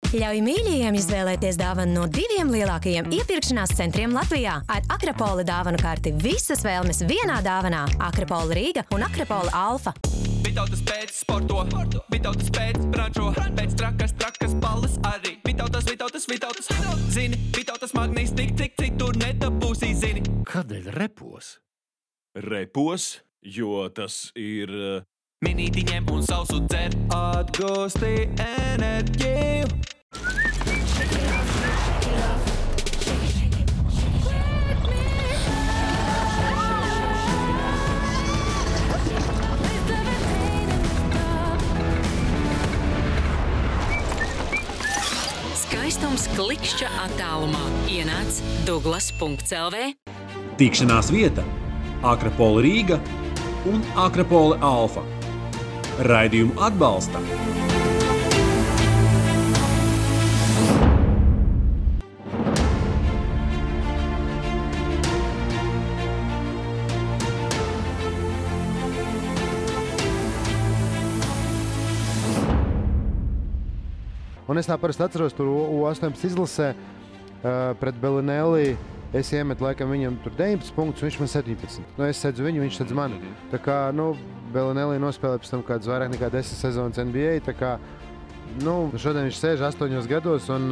Ļauj mīļajiem izvēlēties dāvanu no 2 lielākajiem iepirkšanās centriem Latvijā. Ar Akrapola dāvanu karti visas vēlmes vienā dāvanā. Akrapola Rīga un Akrapola Alfa. Vitautas pēc sporto, Vitautas pēc brančo, pēc trakas balles arī. Vitautas, zini, Vitautas magnīs tik tur nedabūsī, zini. Kādēļ repos? Repos, jo tas ir... Minītiņiem un sausu dzer, atgūsti enerģiju. Skaistums klikšķa attālumā. Ienāc Douglas.lv. Tikšanās vieta Akrapola Rīga un Akrapola Alfa. Raidījumu atbalsta Un es tā parasti atceros tur U18 izlasē pret Belinelli. Es iemetu laikam viņam tur 19 punktus, viņš man 17. Es sedzu viņu, viņš sedz mani. Tā kā, Belinelli nospēlē pēc tam kāds vairāk nekā 10 sezonas NBA. Tā kā, šodien viņš sēž 8 gados un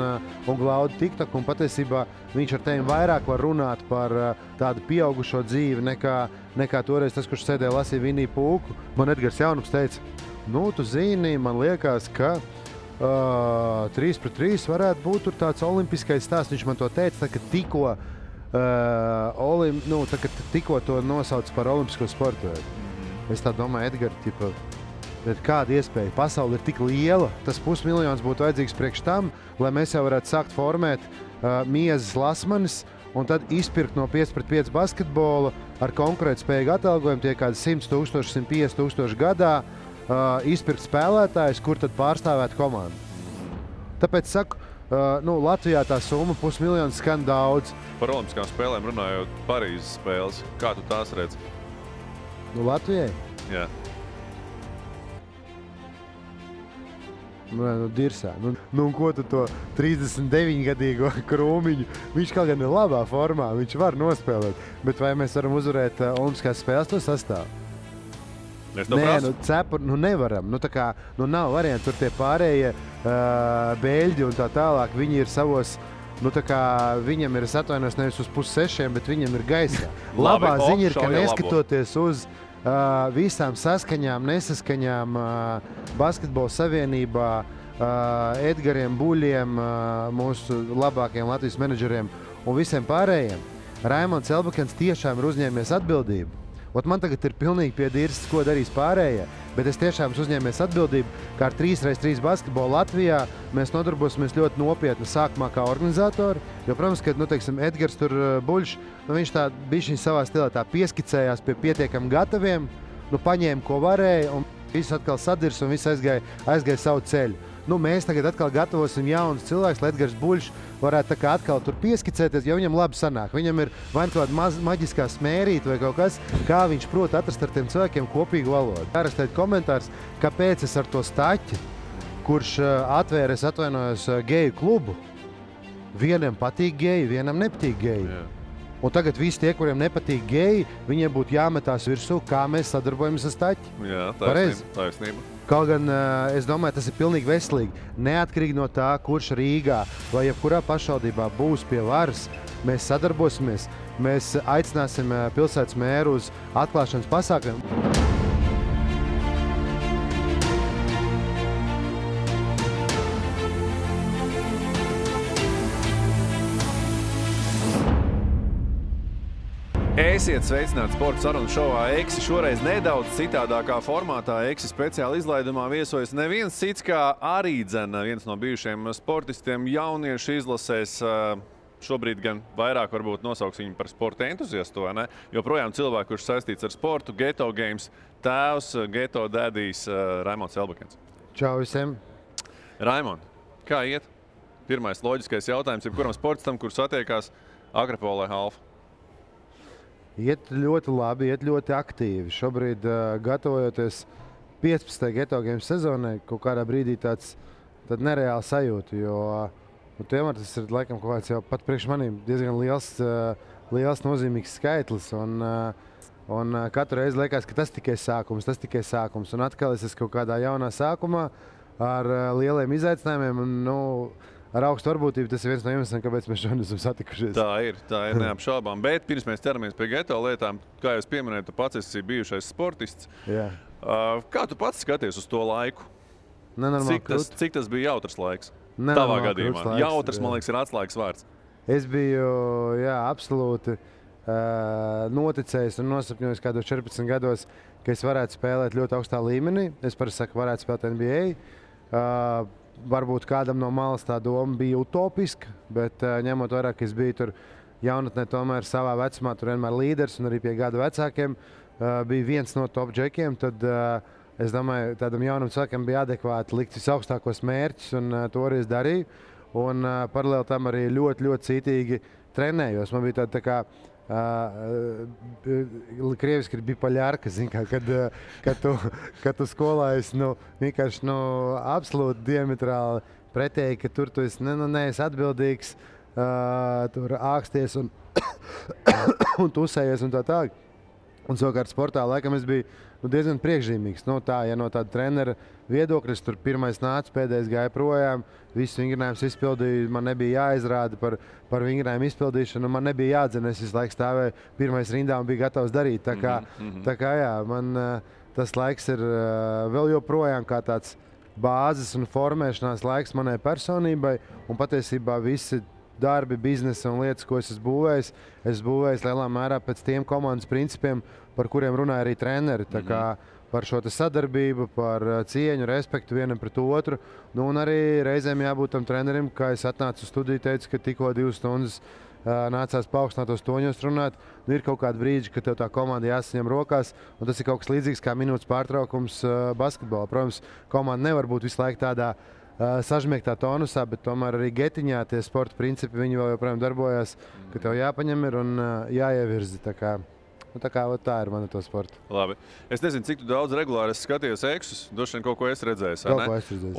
glauda TikTok. Un patiesībā viņš ar tevi vairāk var runāt par tādu pieaugušo dzīvi nekā toreiz tas, kurš sēdēja lasīja Viniju Pūku. Man Edgars Jaunums teica, tu zini, man liekas, ka 3-3 varētu būt tur tāds olimpiskais stāsts. Viņš man to teica, tā, ka tikko to nosauc par olimpisko sportu. Es tā domāju, Edgar, bet kāda iespēja? Pasaule ir tik liela, tas 500 000 būtu vajadzīgs priekš tam, lai mēs jau varētu sākt formēt miezes lasmanis un tad izpirkt no 5-5 basketbola ar konkurētspējīgu atalgojumu tie kādi 100 000, 150 000 gadā. Izpirkt spēlētājus, kur tad pārstāvēt komandu. Tāpēc saku, Latvijā tā summa 500 000 skan daudz. Par olimpiskām spēlēm runājot Parīzes spēles, kā tu tās redz? Latvijai? Jā. Dirsā. Un ko tu to 39-gadīgo Krūmiņu? Viņš kaut gan ir labā formā, viņš var nospēlēt. Bet vai mēs varam uzvarēt olimpiskās spēles to sastāvu? Nevaram. Nav variantu. Tur tie pārējie beļģi un tā tālāk. Viņi ir savos, viņam ir, es atvainojos, nevis uz 5-6, bet viņam ir gaisā. Labā ziņa ir, ka neskatoties uz visām saskaņām, nesaskaņām Basketbola savienībā, Edgariem Buļiem, mūsu labākajiem Latvijas menedžeriem un visiem pārējiem, Raimonds Elbakens tiešām ir uzņēmies atbildību. Man tagad ir pilnīgi piedīrs, ko darīs pārējie, bet es tiešām uzņēmies atbildību, ka ar 3x3 basketbolu Latvijā mēs nodarbosimies ļoti nopietni sākumā kā organizatori, jo, protams, ka, Edgars tur Buļš, viņš tā bišķiņ savā stilā tā pieskicējās pie pietiekami gataviem, paņēma, ko varēja, un viss atkal sadirs un viss aizgāja savu ceļu. Mēs tagad atkal gatavosim jaunus cilvēkus, lai Edgars Buļš varētu tā kā atkal tur pieskicēties, jo viņam labi sanāk. Viņam ir vai kāda maģiskā smērīta vai kaut kas, kā viņš prot atrast ar tiem cilvēkiem kopīgu valodu. Ārastēt komentārs, kāpēc es ar to Staķi, kurš atvēra, es atvainojos, geju klubu, vienam patīk geji, vienam nepatīk geji. Jā. Un tagad visi tie, kuriem nepatīk geji, viņiem būtu jāmetās virsū, kā mēs sadarbojamies ar Staķi. Jā, taisnība. Kaut gan, es domāju, tas ir pilnīgi veselīgi. Neatkarīgi no tā, kurš Rīgā vai jebkurā pašvaldībā būs pie varas, mēs sadarbosimies, mēs aicināsim pilsētas mēru uz atklāšanas pasākumiem. Esiet sveicināti sporta sarunu šovā Eksi. Šoreiz nedaudz citādākā formātā Eksi speciāli izlaidumā viesojas neviens cits kā arī viens no bijušiem sportistiem jauniešu izlasēs. Šobrīd gan vairāk varbūt nosauks viņu par sporta entuziastu, vai ne? Joprojām cilvēku, kurš saistīts ar sportu, Geto Games tēvs, Geto dēdijs Raimonds Elbakens. Čau visiem! Raimond, kā iet? Pirmais loģiskais jautājums, jebkuram sportistam, kurš satiekās Akrapolē Alfa. Iet ļoti labi, iet ļoti aktīvi. Šobrīd gatavojoties 15. Geto Games sezonai, kaut kādā brīdī tāds tad nereāli sajūtu, jo tomēr tas ir laikam kaut kāds jau pat priekš maniem diezgan liels nozīmīgs skaitlis. Un katru reizi liekas, ka tas tikai sākums. Un atkal es esmu kaut kādā jaunā sākumā ar lieliem izaicinājumiem. Un, ar augstu varbūtību tas ir viens no iemesliem, kāpēc mēs šodien esam satikušies. Tā ir neapšaubām. Bet pirms mēs ķeramies pie geto lietām, kā jūs pieminējat, tu pats esi bijušais sportists. Jā. Kā tu pats skaties uz to laiku? Cik tas bija jautrs laiks? Tavā gadījumā. Jautrs, man liekas, ir atslēgas vārds. Es biju, absolūti noticējis un nosapņojis kādos 14 gados, ka es varētu spēlēt ļoti augstā līmenī. Es parasti saku, varētu spēlēt NBA. Varbūt kādam no malas tā doma bija utopiska, bet ņemot vērā, ka es biju tur jaunatnē tomēr savā vecumā, tur vienmēr līderis un arī pie gadu vecākiem, bija viens no top džekiem, tad es domāju, tādam jaunam cilvēkam bija adekvāti likt visaugstākos mērķus un to arī es darīju. Un paralēli tam arī ļoti, ļoti cītīgi trenējos. Man bija tā kā krieviski ir bipoļārka, kad tu skolā esi vienkārši absolūti diametrāli pretēji, ka tur tu esi neesi atbildīgs, tur āksties un tusējies un tā tālāk. Un savukārt sportā laikam es biju diezgan priekšzīmīgs. No tāda trenera viedokļa, es tur pirmais nācu, pēdējais gāja projām, visus vingrinājumus izpildīju, man nebija jāizrāda par vingrinājumu izpildīšanu, man nebija jādzina, es visu laiku stāvēju pirmais rindā un biju gatavs darīt. Tā kā jā, man tas laiks ir vēl joprojām kā tāds bāzes un formēšanās laiks manai personībai, un patiesībā visi darbi, biznesa un lietas, ko es esmu būvējis lielā mērā pēc tiem komandas principiem, par kuriem runāja arī treneri. Tā kā par šo sadarbību, par cieņu, respektu vienam pret otru. Un arī reizēm jābūt tam trenerim, kā es atnācu uz studiju, teicu, ka tikko 2 stundas nācās paaugstinātos toņos runāt. Ir kaut kādi brīži, kad tev tā komanda jāsaņem rokās, un tas ir kaut kas līdzīgs kā minūtes pārtraukums basketbolā. Protams, komanda nevar būt visu laiku tādā sažmiegtā tonusā, bet tomēr arī getiņā tie sporta principi, viņi vēl joprojām darbojas, ka tev jāpaņem ir un jāievirzi. Tā ir mana to sporta. Labi. Es nezinu, cik daudz regulāri es skatījos eksus. Droši vien kaut ko es redzēju.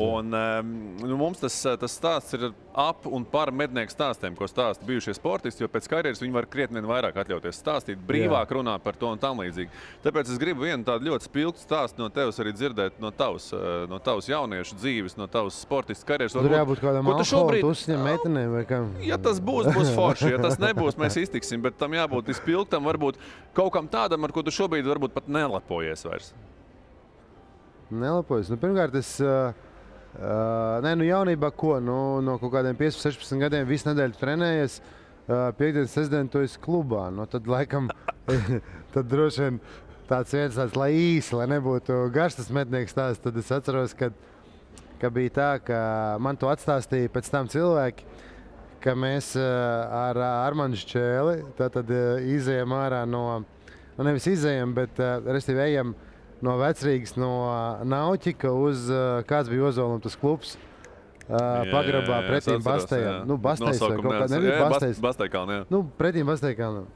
Un mums tas stāsts ir ap un par mednieku stāstiem, ko stāsta bijušie sportisti, jo pēc karjeras viņi var krietni vairāk atļauties stāstīt, brīvāk runāt par to un tam līdzīgi. Tāpēc es gribu vienu tādu ļoti spilgtu stāstu no tevis arī dzirdēt no tavas jauniešu dzīves, no tavas sportistu karjeras. Tur jābūt kādam alkohola uzņem meitenēm vai kam? Ja tas būs forši. Ja tas nebūs, mēs iztiksim, bet tam jābūt izpilgtam, varbūt kaut kam tādam, ar ko tu šobrīd varbūt pat nelepojies vairs. Nelepojies? Pirmkārt, es jaunībā ko? No kaut kādiem 15-16 gadiem visu nedēļu trenējies. Piektdienas, sestdien tu esi klubā. Tad laikam, tad droši vien tāds lai īsi, lai nebūtu garš tas mednieks stāsts. Tad es atceros, ka bija tā, ka man to atstāstīja pēc tam cilvēki, ka mēs ar Armandu Šķēli tad izejam ārā nevis izejam, bet restīvi ejam no Vecrīgas, no Nauķika uz kāds bija Ozolum tas klubs pagrabā pretīm Bastejam. Bastejs vai kaut kā, nebija Bastejs. Bastejkalni, jā. Pretīm Bastejkalnam.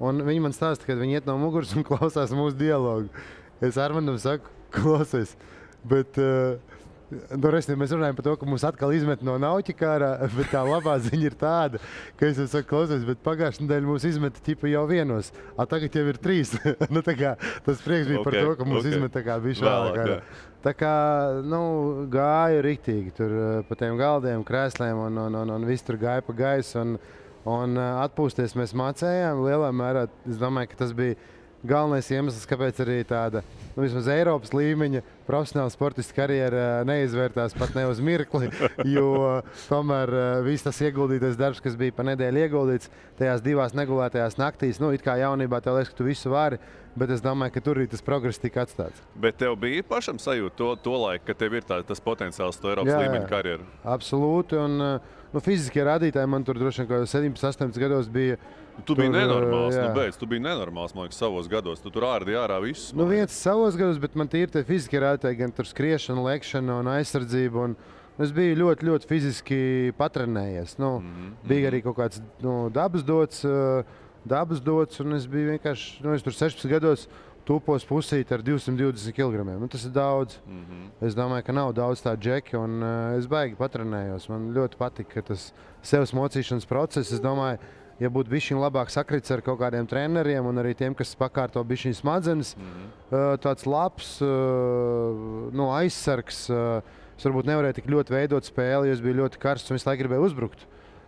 Un viņi man stāsta, kad viņi iet no muguras un klausās mūsu dialogu. Es Armandam saku, klausies, bet mēs runājam par to, ka mums atkal izmet no Nauķika ārā, bet tā labā ziņa ir tāda, ka es saku, klausies, bet pagājušajā nedēļā mums izmeta ķipa jau vienos, tagad jau ir 3. Tas prieks bija par to, ka mums izmet bišķi vēlāk ārā. Tā kā, gāju riktīgi tur pa tiem galdiem, krēsliem un viss tur gāja pa gaisu un atpūsties mēs mācējām. Lielā mērā, es domāju, ka tas bija galvenais iemesls, kāpēc arī tāda vismaz Eiropas līmeņa profesionāla sportista karjera neizvērtās pat ne uz mirkli, jo tomēr viss tas ieguldītais darbs, kas bija pa nedēļu ieguldīts tajās 2 negulētajās naktīs, it kā jaunībā tev liekas, ka tu visu vari, bet es domāju, ka tur arī tas progress tika atstāts. Bet tev bija pašam sajūta to laiku, ka tev ir tas potenciāls to Eiropas līmeņa karjeru? Absolūti, un fiziskie rādītāji man tur droši vien kaut 17-18 gados bija. Tu biji nenormāls, tu biji nenormāls, man liekas, savos gados. Tu tur ārdi ārā visus. Viens savos gados, bet man tīri tie fiziskie rādītāji, gan tur skriešana, lekšana un aizsardzība. Es biju ļoti, ļoti fiziski patrenējies. Bija arī kaut kāds dabas dots, un es biju vienkārši, es tur 16 gados tupos pusīti ar 220 kg. Nu, tas ir daudz. Es domāju, ka nav daudz tādu džeki, un es baigi patrenējos. Man ļoti patīk, ka tas sevs mocīšanas process, es domāju, ja būtu bišķiņ labāk sakrits ar kaut kādiem treneriem un arī tiem, kas pakārto bišķiņ smadzenes, tāds labs aizsargs. Es varbūt nevarēju tik ļoti veidot spēli, jo es biju ļoti karsts un visu laiku gribēju uzbrukt.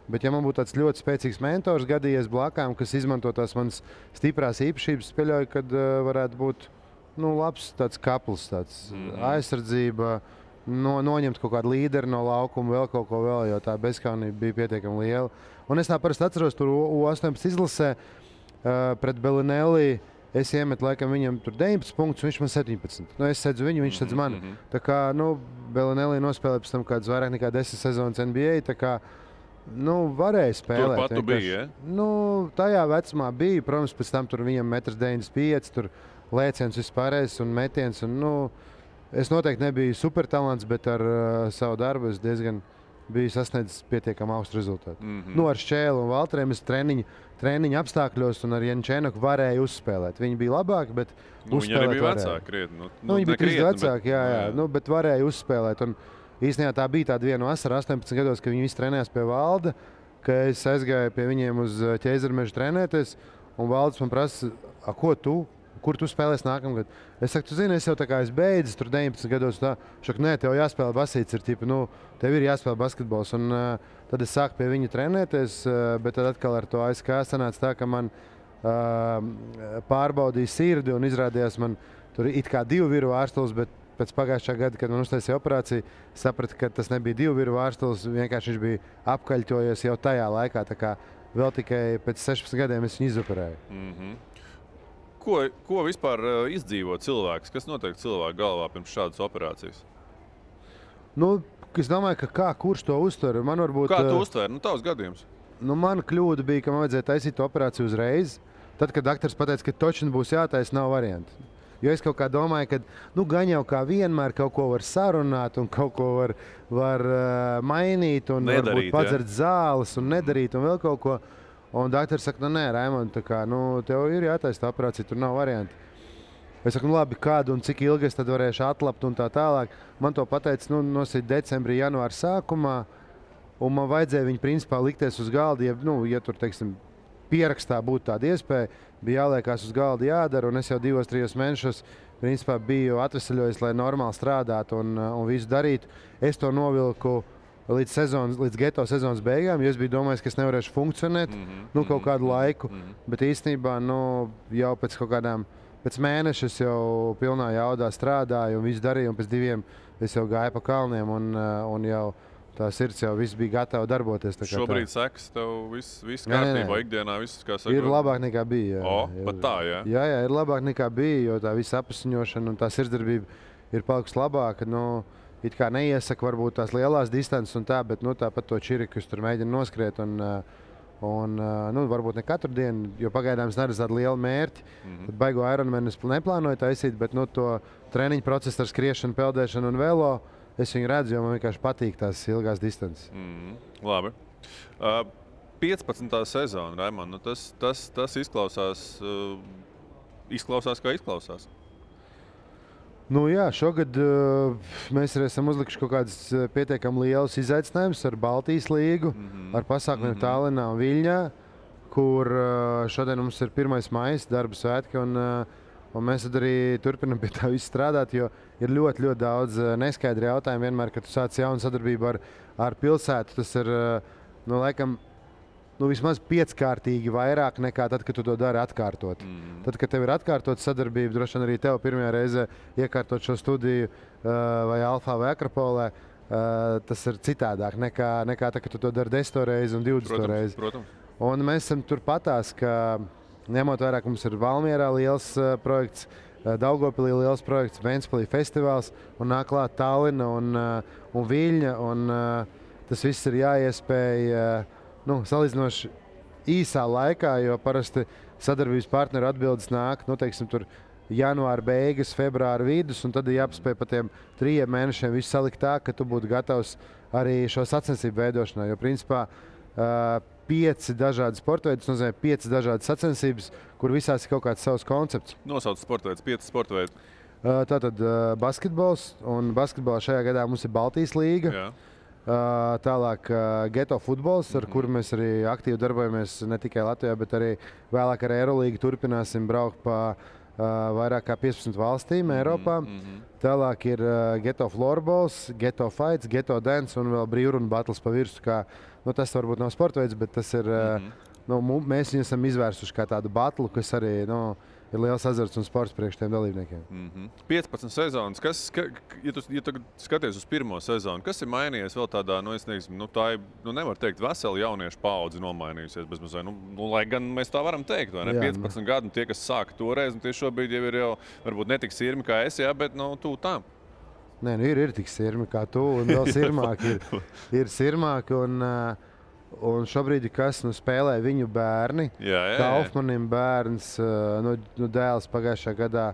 Bet, ja man būtu tāds ļoti spēcīgs mentors gadījies blakām, kas izmanto tās manas stiprās īpašības, pieļauju, kad varētu būt labs tāds kapls, tāds aizsardzība, noņemt kaut kādu līderi no laukuma, vēl kaut ko vēl, jo tā bezkaunība bija pietiekami liela. Un es tā parasti atceros, tur U18 izlasē pret Belinelli. Es iemetu laikam viņam tur 19 punktus, viņš man 17. Es sedzu viņu, viņš sedz mani. Tā kā Belinelli nospēlēja pēc tam kādas vairāk nekā 10 sezonas NBA. Tā kā varēja spēlēt. Turpat tu biji, ja? Tajā vecumā bija. Protams, pēc tam tur viņam 1,95 m, tur lēciens vispārējais un metiens. Es noteikti nebiju supertalants, bet ar savu darbu es diezgan biju sasniedzis pietiekami augstu rezultātu. Ar Šķēlu un Valteriem es treniņu apstākļos un ar Jančēnaku varēju uzspēlēt. Viņi bija labāki, bet viņi arī bija vecāki krietni. Viņi bija krietni vecāki, jā. Bet varēju uzspēlēt. Un īstenībā tā bija tāda viena vasara 18 gados, kad viņi visi trenējās pie Valda, ka es aizgāju pie viņiem uz Ķeizarmežu trenēties, un Valds man prasa, kur tu spēlēsi nākamgad? Es saku, tu zini, es jau tā kā es beidzu tur 19 gados, tā, šak, nē, tev jāspēlē basīts, tev ir jāspēlē basketbols, un tad es sāku pie viņa trenēties, bet tad atkal ar to ASK sanāca tā, ka man pārbaudīja sirdi, un izrādījās man tur it kā 2 viru ārstulis, bet pēc pagājušā gada, kad man uztaisīja operāciju, sapratu, ka tas nebija 2 viru ārstulis, vienkārši viņš bija apkaļķojies jau tajā laikā, tā kā vēl tikai pēc 16 gadiem es viņu izoperēju. Ko vispār izdzīvo cilvēks? Kas notiek cilvēku galvā pirms šādas operācijas? Es domāju, ka kurš to uztver? Man varbūt, kā tu uztver? Tavs gadījums. Mana kļūda bija, ka man vajadzēja taisīt operāciju uzreiz. Tad, kad doktors pateica, ka točni būs jātaisa, nav variantu. Jo es kaut kā domāju, ka gan jau kā vienmēr kaut ko var sarunāt un kaut ko var mainīt un nedarīt, varbūt padzert zāles un nedarīt un vēl kaut ko. Un doktors saka, nē, Raimond, tev ir jātaisa tā operācija, tur nav varianti. Es saku, labi, kādu un cik ilgi es tad varēšu atlapt un tā tālāk. Man to pateica nosīt decembrī, janvāra sākumā, un man vajadzēja viņu principā likties uz galda, ja tur, teiksim, pierakstā būtu tāda iespēja, bija jāliekās uz galda jādara, un es jau 2-3 mēnešos principā biju atvesaļojis, lai normāli strādātu un visu darītu. Es to novilku līdz geto sezonas beigām, jo es biju domājis, ka es nevarēšu funkcionēt kaut kādu laiku, bet īstenībā jau pēc mēneša es jau pilnā jaudā strādāju un visu darīju, un pēc 2 es jau gāju pa kalniem un jau tā sirds jau viss bija gatava darboties. Šobrīd sekas tev viss kārtībā, ikdienā viss, kā saka? Ir labāk nekā bija. Pat tā, jā? Jā, ir labāk nekā bija, jo tā visa apasiņošana un tā sirdsdarbība ir palikusi labāka. It kā neiesaka varbūt tās lielās distances un tā, bet tāpat to čiriku tur mēģina noskriet un varbūt ne katru dienu, jo pagaidām es neredzu tādu lielu mērķi. Tad baigo Ironmanu es neplānoju taisīt, bet to treniņu procesu ar skriešanu, peldēšanu un velo es viņu redzu, jo man vienkārši patīk tās ilgās distances. Labi. 15. sezona, Raimond, tas izklausās kā izklausās. Jā, šogad mēs arī esam uzlikuši kaut kādas pietiekami lielas izaicinājumus ar Baltijas līgu, ar pasākumiem Tallinā un Viļņā, kur šodien mums ir 1. maijs, darba svētki, un mēs tad arī turpinam pie tā visu strādāt, jo ir ļoti, ļoti daudz neskaidri jautājumi vienmēr, kad tu sāc jaunu sadarbību ar pilsētu. Tas ir, laikam, vismaz 5-kārtīgi vairāk nekā tad, kad tu to dari atkārtot. Tad, kad tev ir atkārtot sadarbība, droši vien arī tev pirmajā reizē iekārtot šo studiju vai Alfā vai Akropolē, tas ir citādāk nekā tad, kad tu to dari 10 reizi un 20 reizi. Protams. Un mēs esam turpatās, ka ņemot vērā, ka mums ir Valmierā liels projekts, Daugavpilī liels projekts, Ventspilī festivāls un nāk klāt Tallina un Viļņa, un tas viss ir jāiespēj salīdzinoši īsā laikā, jo parasti sadarbības partneru atbildes nāk, tur janvāra beigas, februāra vidus, un tad ir jāpaspēj pa tiem 3 mēnešiem visu salikt tā, ka tu būtu gatavs arī šo sacensību veidošanai. Jo, principā, 5 dažādi sportveidi, tas nozīmē 5 dažādas sacensības, kur visās ir kaut kāds savs koncepts. Nosauc sportveids, 5 sportveidi. Tātad basketbols, un basketbolā šajā gadā mums ir Baltijas līga. Jā. Tālāk geto futbols, ar kuru mēs arī aktīvi darbojamies ne tikai Latvijā, bet arī vēlāk ar Eirolīgu turpināsim braukt pa vairāk kā 15 valstīm Eiropā. Tālāk ir geto floorballs, geto fights, geto dance un vēl brīvrunu battles pa virsu. Tas varbūt nav sportveids, bet tas ir, mēs viņu esam izvērsuši kā tādu battlu, kas arī ir liels azarts un sports priekš tiem dalībniekiem. 15 sezonas. Ja tu skaties uz pirmo sezonu, kas ir mainījies vēl tādā, tā ir, nevar teikt, vesela jauniešu paudze nomainījusies bezmazliet. Lai gan mēs tā varam teikt, vai ne? Jā, 15 gadu tie, kas sāka toreiz, un tie šobrīd jau ir varbūt ne tik sirmi kā es, bet tu tām. Nē, ir tik sirmi kā tu, un vēl sirmāki ir sirmāki. Un šobrīd, kas spēlē viņu bērni, Kaufmanim bērns, dēls pagājušajā gadā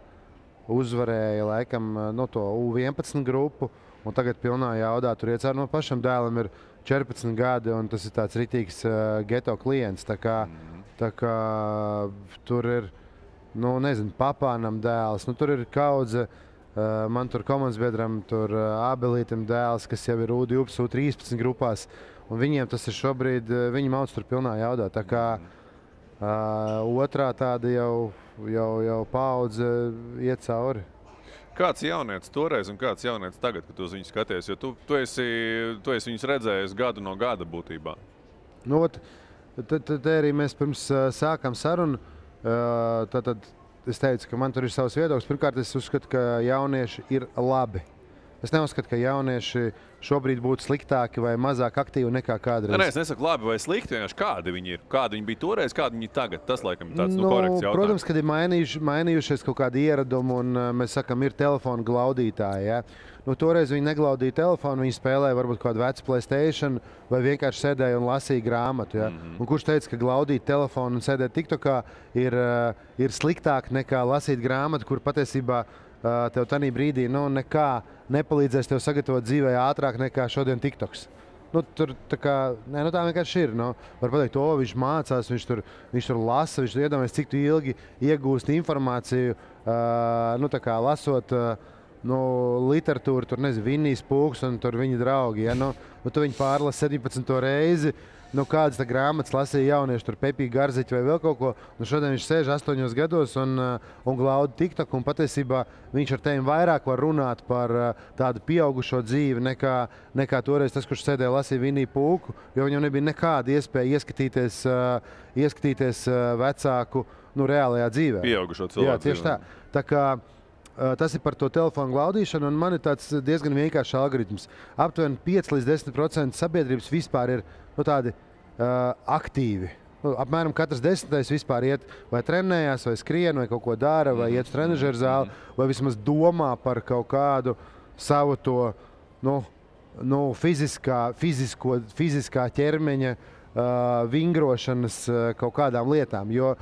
uzvarēja laikam to U11 grupu, un tagad pilnā jaudā tur iecēr no pašam dēlam ir 14 gadi, un tas ir tāds ritīgs geto klients. Tā kā tur ir, papānam dēls, tur ir kaudze. Man tur komandas biedram, tur Ābelītam dēls, kas jau ir U12, U13 grupās. Un viņiem tas ir šobrīd, viņi mauc tur pilnā jaudā. Tā kā otrā tāda jau paudze iet cauri. Kāds jaunietis toreiz un kāds jaunietis tagad, kad tu uz viņu skaties? Jo tu esi viņus redzējis gadu no gada būtībā. Tad arī mēs pirms sākām sarunu. Tad es teicu, ka man tur ir savs viedoklis. Pirmkārt, es uzskatu, ka jaunieši ir labi. Es neuzskatu, ka jaunieši šobrīd būtu sliktāki vai mazāk aktīvi nekā kādreiz. Nē, es nesaku labi vai slikti, vienkārši kādi viņi ir. Kādi viņi bija toreiz, kādi viņi tagad. Tas, laikam, ir tāds korekts jautājums. Protams, kad ir mainījušies kaut kādi ieradumi, un mēs sakam, ir telefonu glaudītāji. Ja? Toreiz viņi neglaudīja telefonu, viņi spēlēja varbūt kādu vecu PlayStation vai vienkārši sēdēja un lasīja grāmatu. Ja? Un kurš teica, ka glaudīt telefonu un sēdēt TikTokā ir sliktāk nekā lasīt grāmatu, kur patiesībā tev tanī brīdī nekā nepalīdzēs tev sagatavot dzīvē ātrāk nekā šodien TikToks. Tā vienkārši ir. Var pateikt, viņš mācās, viņš tur lasa, viņš iedomājas, cik tu ilgi iegūst informāciju, lasot literatūru, tur Vinnijs Pūks un tur viņa draugi. Ja? Tu viņu pārlasi 17. reizi. Kādas grāmatas lasīja jaunieši, tur Pepī Garziķi vai vēl kaut ko. Šodien viņš sēž 8 gados un glauda TikTok. Un patiesībā viņš ar tevi vairāk var runāt par tādu pieaugušo dzīvi nekā toreiz tas, kurš sēdēja lasīja Vinniju Pūku. Jo viņam nebija nekāda iespēja ieskatīties vecāku reālajā dzīvē. Pieaugušo cilvēku. Jā, tieši tā. Tā kā tas ir par to telefonu glaudīšanu, un man ir tāds diezgan vienkāršs algoritms. Aptuveni 5 līdz 10% sabiedrības vispār ir tādi aktīvi. Apmēram katrs 10. vispār iet vai trenējās, vai skrien, vai kaut ko dara, vai iet uz trenažeru zāli, vai vismaz domā par kaut kādu savu to fiziskā ķermeņa vingrošanas kaut kādām lietām. Jo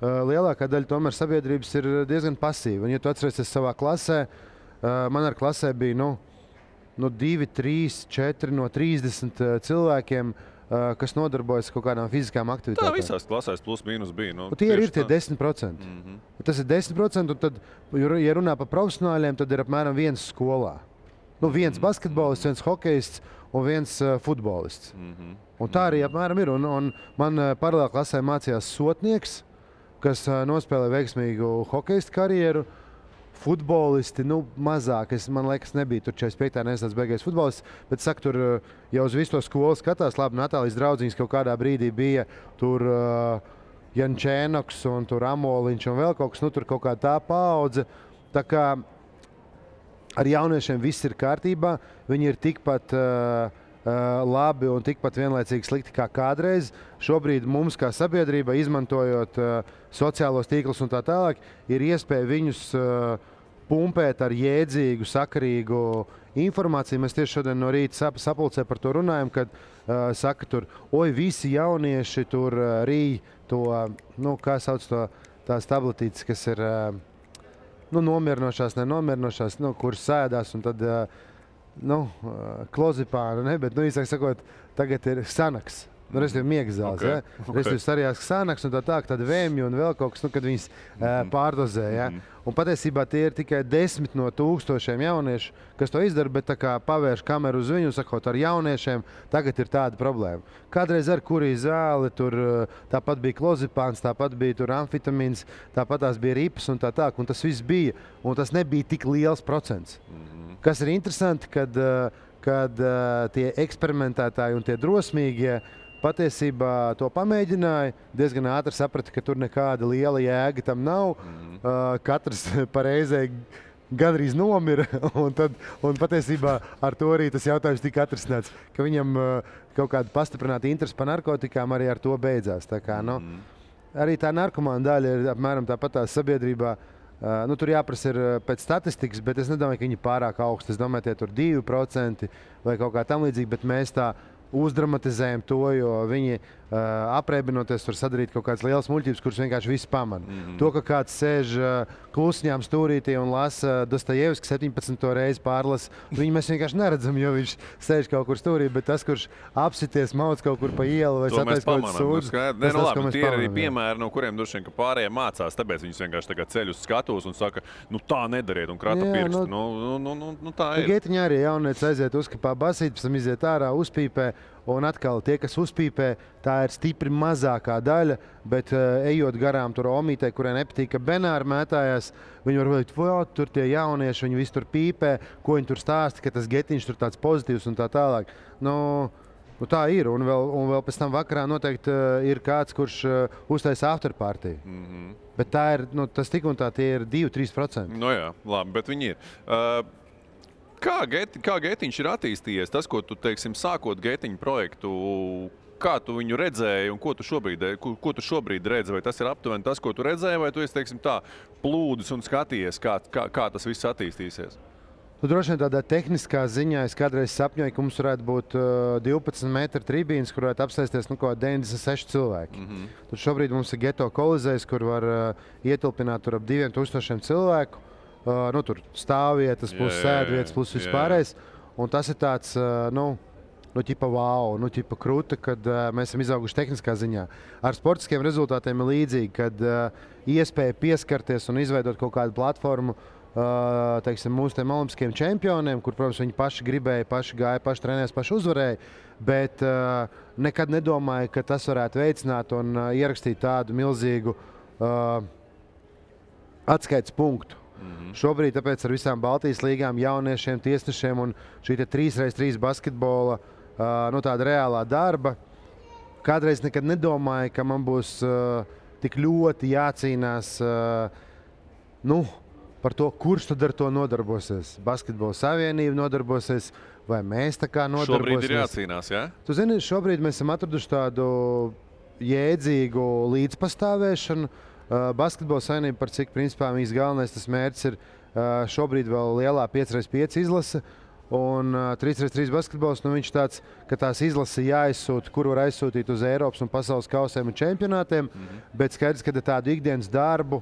lielākā daļa tomēr sabiedrības ir diezgan pasīva. Un, ja tu atceries savā klasē, man ar klasē bija 2, 3, 4 no 30 cilvēkiem, kas nodarbojas kaut kādām fiziskām aktivitātēm. Tā visās klasēs plus mīnus bija. Tie ir tie 10%. Tas ir 10%, un tad, ja runā par profesionāļiem, tad ir apmēram viens skolā. Viens basketbolists, viens hokejists un viens futbolists. Un tā arī apmēram ir. Un man paralēli klasē mācījās sotnieks, kas nospēlē veiksmīgu hokejistu karjeru. Futbolisti, mazāk, man liekas, nebija tur 45. nestāds beigais futbolists, bet saka, tur jau uz visu to skolu skatās, labi, Natālijas draudziņas kaut kādā brīdī bija tur Jančēnoks un tur Amoliņš un vēl kaut kas, tur kaut kā tā paudze. Tā kā ar jauniešiem viss ir kārtībā, viņi ir tikpat labi un tikpat vienlaicīgi slikti kā kādreiz. Šobrīd mums kā sabiedrība, izmantojot sociālos tīklus un tā tālāk, ir iespēja viņus pumpēt ar jēdzīgu, sakarīgu informāciju. Mēs tieši šodien no rīta sapulcē par to runājam, kad saka tur, visi jaunieši tur rīj to, kā sauc to, tās tabletītes, kas ir nomierinošās, nenomierinošās, kuras sēdās un tad klozipānu, bet īsāk sakot, tagad ir Sanaks. Respektīvi miegas zāles. Ja? Respektīvi sarījās sānaks un tāda vēmju un vēl kaut kas, kad viņas pārdozē. Ja? Un patiesībā tie ir tikai 10 no 1000 jauniešu, kas to izdara, bet tā kā pavērš kameru uz viņu un sakot ar jauniešiem, tagad ir tāda problēma. Kādreiz ar kurī zāli, tur tāpat bija klozipāns, tāpat bija tur amfitamīns, tāpat tās bija ripas un tā, un tas viss bija, un tas nebija tik liels procents. Kas ir interesanti, kad tie eksperimentētāji un tie drosmīgie patiesībā to pamēģināja, diezgan ātri saprata, ka tur nekāda liela jēga tam nav. Katrs pareizē gandrīz nomira, un patiesībā ar to arī tas jautājums tika atrisināts, ka viņam kaut kāda pastiprināta interese par narkotikām arī ar to beidzās. Tā kā, arī tā narkomāna daļa ir apmēram tāpat tās sabiedrībā. Tur jāprasa ir pēc statistikas, bet es nedomāju, ka viņi ir pārāk augsti. Es domāju, tie tur 2% vai kaut kā tam līdzīgi, bet mēs tā uzdramatizējam to, jo viņi apreibinoties var sadarīt kaut kādas lielas muļķības, kuras vienkārši visi pamana. To, ka kāds sēž klusiņām stūrītī un lasa Dostojevski 17. reizi pārlasa, viņu mēs vienkārši neredzam, jo viņš sēž kaut kur stūrī, bet tas, kurš apsities mauc kaut kur pa ielu vai satais kaut kāds sūdz. Tie ir arī piemēri, no kuriem droši vien, ka pārējie mācās, tāpēc viņus vienkārši tagad ceļ uz skatos un saka, tā nedariet un krata pirkstu. Tā ir. Getiņā arī jaunieci aiziet uzkapā basīt, pēc tam iziet ārā, uzpīpē. Un atkal tie, kas uzpīpē, tā ir stipri mazākā daļa, bet ejot garām tur omītei, kurai nepatīk, ka Benāri mētājās, viņi var teikt, tur tie jaunieši, viņi visi tur pīpē, ko viņi tur stāsta, ka tas getiņš tur tāds pozitīvs un tā tālāk. Tā ir, un vēl pēc tam vakarā noteikti ir kāds, kurš uztaisa afterparty. Bet tā ir, tas tik un tā tie ir 2-3%. Jā, labi, bet viņi ir. Kā Getiņš ir attīstījies? Tas, ko tu, teiksim, sākot Getiņu projektu, kā tu viņu redzēji un ko tu šobrīd redzi? Vai tas ir aptuveni tas, ko tu redzēji, vai tu esi, teiksim, tā plūdis un skatījies, kā tas viss attīstīsies? Droši vien tādā tehniskā ziņā es kādreiz sapņoju, ka mums varētu būt 12 metru tribīnes, kur varētu apsēsties 96 cilvēki. Tur šobrīd mums ir Geto kolizejs, kur var ietilpināt tur ap 2000 cilvēku. Tur stāvvietas, plus sēdvietas, plus vispārējais. Un tas ir tāds, ķipa wow, ķipa kruta, kad mēs esam izauguši tehniskā ziņā. Ar sportiskiem rezultātiem ir līdzīgi, kad iespēja pieskarties un izveidot kaut kādu platformu, teiksim, mūsu tiem olimpiskiem čempioniem, kur, protams, viņi paši gribēja, paši gāja, paši trenējās, paši uzvarēja, bet nekad nedomāju, ka tas varētu veicināt un ierakstīt tādu milzīgu atskaites punktu. Šobrīd tāpēc ar visām Baltijas līgām, jauniešiem, tiesnešiem un šī 3x3 basketbola tāda reālā darba. Kādreiz nekad nedomāju, ka man būs tik ļoti jācīnās par to, kurš tad ar to nodarbosies. Basketbola savienība nodarbosies, vai mēs tā kā nodarbosies. Šobrīd ir jācīnās, jā? Tu zini, šobrīd mēs esam atraduši tādu jēdzīgu līdzpastāvēšanu. Basketbola savienība, par cik principā viņas galvenais tas mērķis ir šobrīd vēl lielā 5x5 izlase. Un 3x3 basketbols, viņš tāds, ka tās izlases jāizsūta, kur var aizsūtīt uz Eiropas un pasaules kausiem un čempionātiem, bet skaidrs, ka tādu ikdienas darbu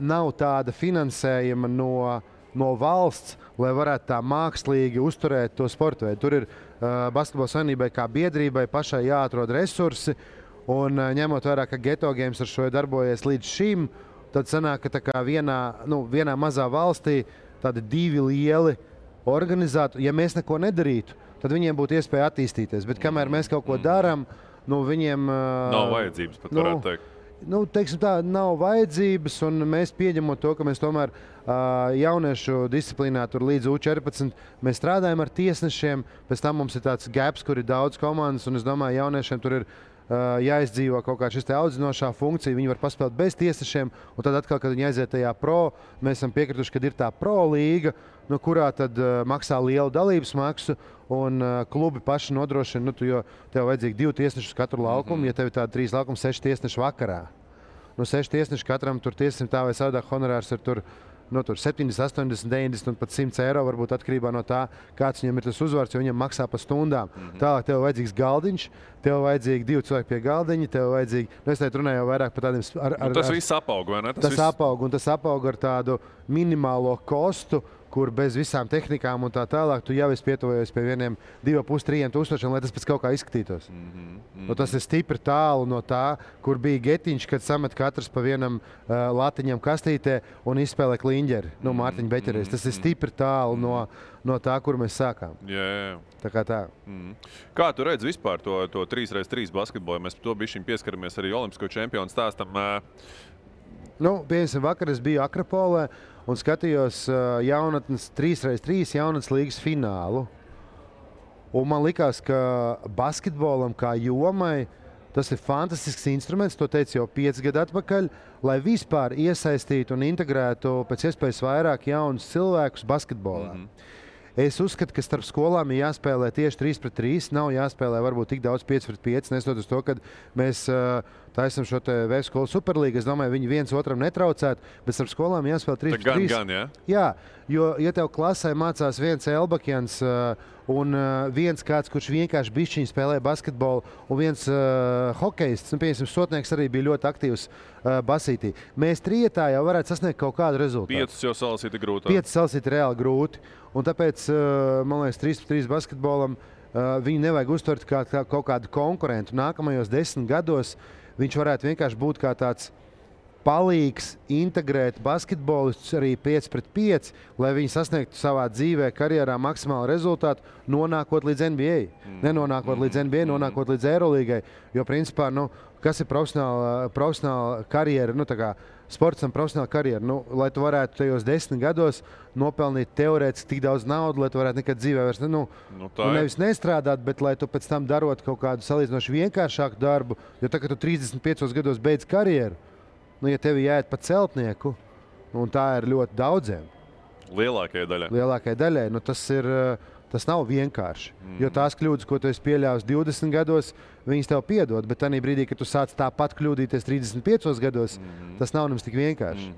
nav tāda finansējuma no valsts, lai varētu tā mākslīgi uzturēt to sportu veidu. Tur ir basketbola savienībai kā biedrībai pašai jāatrod resursi, un ņemot vērā, ka Geto Games ar šo darbojies līdz šim, tad sanāk, ka tā kā vienā mazā valstī tādi divi lieli organizātori, ja mēs neko nedarītu, tad viņiem būtu iespēja attīstīties. Bet kamēr mēs kaut ko darām, viņiem nav vajadzības, pat varētu teikt. Teiksim tā, nav vajadzības, un mēs pieņemot to, ka mēs tomēr jauniešu disciplīnā tur līdz U14 mēs strādājam ar tiesnešiem, pēc tam mums ir tāds gaps, kur ir daudz komandas, un es domāju, jauniešiem tur ir jāizdzīvo kaut kā šis te audzinošā funkcija, viņi var paspēlēt bez tiesnešiem, un tad atkal, kad viņi aiziet tajā pro, mēs esam piekrituši, kad ir tā pro līga, kurā tad maksā lielu dalības maksu, un klubi paši nodrošina, jo tev vajadzīgi 2 tiesneši uz katru laukumu, ja tev ir tādi 3 laukumi, 6 tiesneši vakarā. 6 tiesneši katram tur tiesnesim tā vai savādāk honorārs ir tur 70, 80, 90 un pat 100 eiro, varbūt atkarībā no tā, kāds viņam ir tas uzvārds, jo viņam maksā pa stundām. Tālāk tev vajadzīgs galdiņš, tev vajadzīgi 2 cilvēki pie galdiņa, tev vajadzīgi, es teicu runāju jau vairāk par tādiem... Tas viss apaug, vai ne? Tas apaug, un tas apaug ar tādu minimālo kostu, kur bez visām tehnikām un tā tālāk, tu jau esi pietuvojies pie 2,5–3 tūkstošiem, lai tas pēc kaut kā izskatītos. Nu, tas ir stipri tālu no tā, kur bija Getiņš, kad samet katrs pa vienam latiņam kastītē un izspēlē kliņģeri, Mārtiņa Beķeries. Tas ir stipri tālu no tā, kur mēs sākām. Jā. Tā kā tā. Kā tu redzi vispār to 3x3 basketbolu? Mēs par to bišķiņ pieskaramies arī olimpisko čempionu stāstam. Piemēram, vakar es biju Akrapolē un skatījos jaunatnes 3x3 jaunatnes līgas finālu. Un man likās, ka basketbolam kā jomai tas ir fantastisks instruments, to teicu jau 5 gadu atpakaļ, lai vispār iesaistītu un integrētu pēc iespējas vairāk jaunus cilvēkus basketbolā. Es uzskatu, ka starp skolām ir jāspēlē tieši 3x3, nav jāspēlē varbūt tik daudz 5x5, nesot uz to, ka mēs taisam šo te VF skolu superlīgu. Es domāju, viņi viens otram netraucētu, bet starp skolām jāspēlē 3x3. Gan, jā? Jā, jo, ja tev klasē mācās viens Elbakjans un viens kāds, kurš vienkārši bišķiņ spēlē basketbolu, un viens hokejists, piemēram, Sotnieks arī bija ļoti aktīvs basītī. Mēs trietā jau varētu sasniegt kaut kādu rezultātu. 5 jau salasīt ir grūti. 5 salasīt ir reāli grūti. Un tāpēc, man liekas, 3x3 basketbolam viņu nevajag uztvert kā kaut kādu konkurentu. Nākamajos 10 gados viņš varētu vienkārši būt kā tāds palīgs integrēt basketbolistus arī 5x5, lai viņi sasniegtu savā dzīvē, karjerā maksimālu rezultātu, nonākot līdz NBA. Nenonākot līdz NBA, nonākot līdz Eirolīgai. Jo, principā, kas ir profesionāla karjera, tā kā sportam profesionāla karjera, lai tu varētu tajos 10 gados nopelnīt teorētiski tik daudz naudu, lai tu varētu nekad dzīvē vairs nevis nestrādāt, bet lai tu pēc tam darot kaut kādu salīdzinoši vienkāršāku darbu, jo tā, ka tu 35 gados beidz karjeru, ja tevi jāiet pa celtnieku, un tā ir ļoti daudziem. Lielākajai daļai. Tas nav vienkārši. Jo tās kļūdas, ko tu esi pieļāvis 20 gados, viņas tev piedod, bet tajā brīdī, kad tu sāc tāpat kļūdīties 35 gados, tas nav nemaz tik vienkārši.